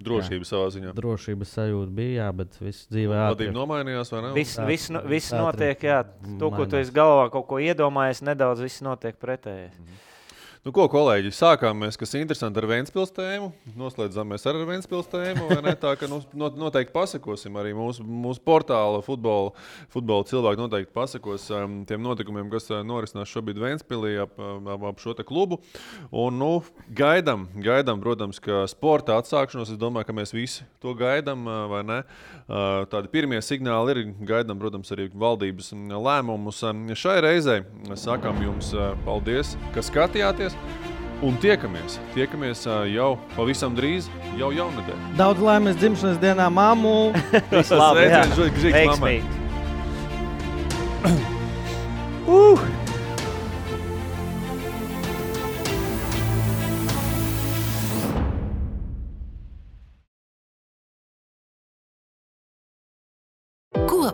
drošība savā ziņā. Drošības sajūta bija, jā, bet viss dzīvē ātri. Vadība nomainījās, vai ne? Viss notiek, jā. To, ko tu esi galvā kaut ko iedomājies, nedaudz viss notiek pretējais. Ko, kolēģi, sākām mēs, kas interesanti ar Ventspils tēmu, noslēdzāmies ar Ventspils tēmu, vai ne? Tā, ka noteikti pasakosim arī mūsu portāla futbola cilvēki noteikti pasakos tiem notikumiem, kas norisinās šobrīd Ventspilī ap šo te klubu. Un, gaidam, protams, ka sporta atsākšanos, es domāju, ka mēs visi to gaidam, vai ne? Tādi pirmie signāli ir, gaidam, protams, arī valdības lēmumus. Šai reizei sakām jums paldies, ka skatījāties. Un tiekamies jau pavisam drīz, jau jaunadēļ. Daudz laimes dzimšanas dienā, mammu! Viss labi, veiksmīgi!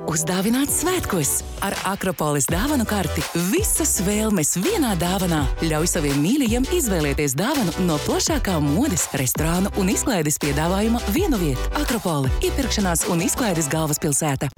Uzdāvināt svētkos ar Akropolis dāvanu karti. Visas vēlmes vienā dāvanā. Ļauj saviem mīļajiem izvēlēties dāvanu no plašākā modes, restorānu un izklaides piedāvājuma vienu vietu. Akropoli – iepirkšanās un izklaides galvaspilsēta.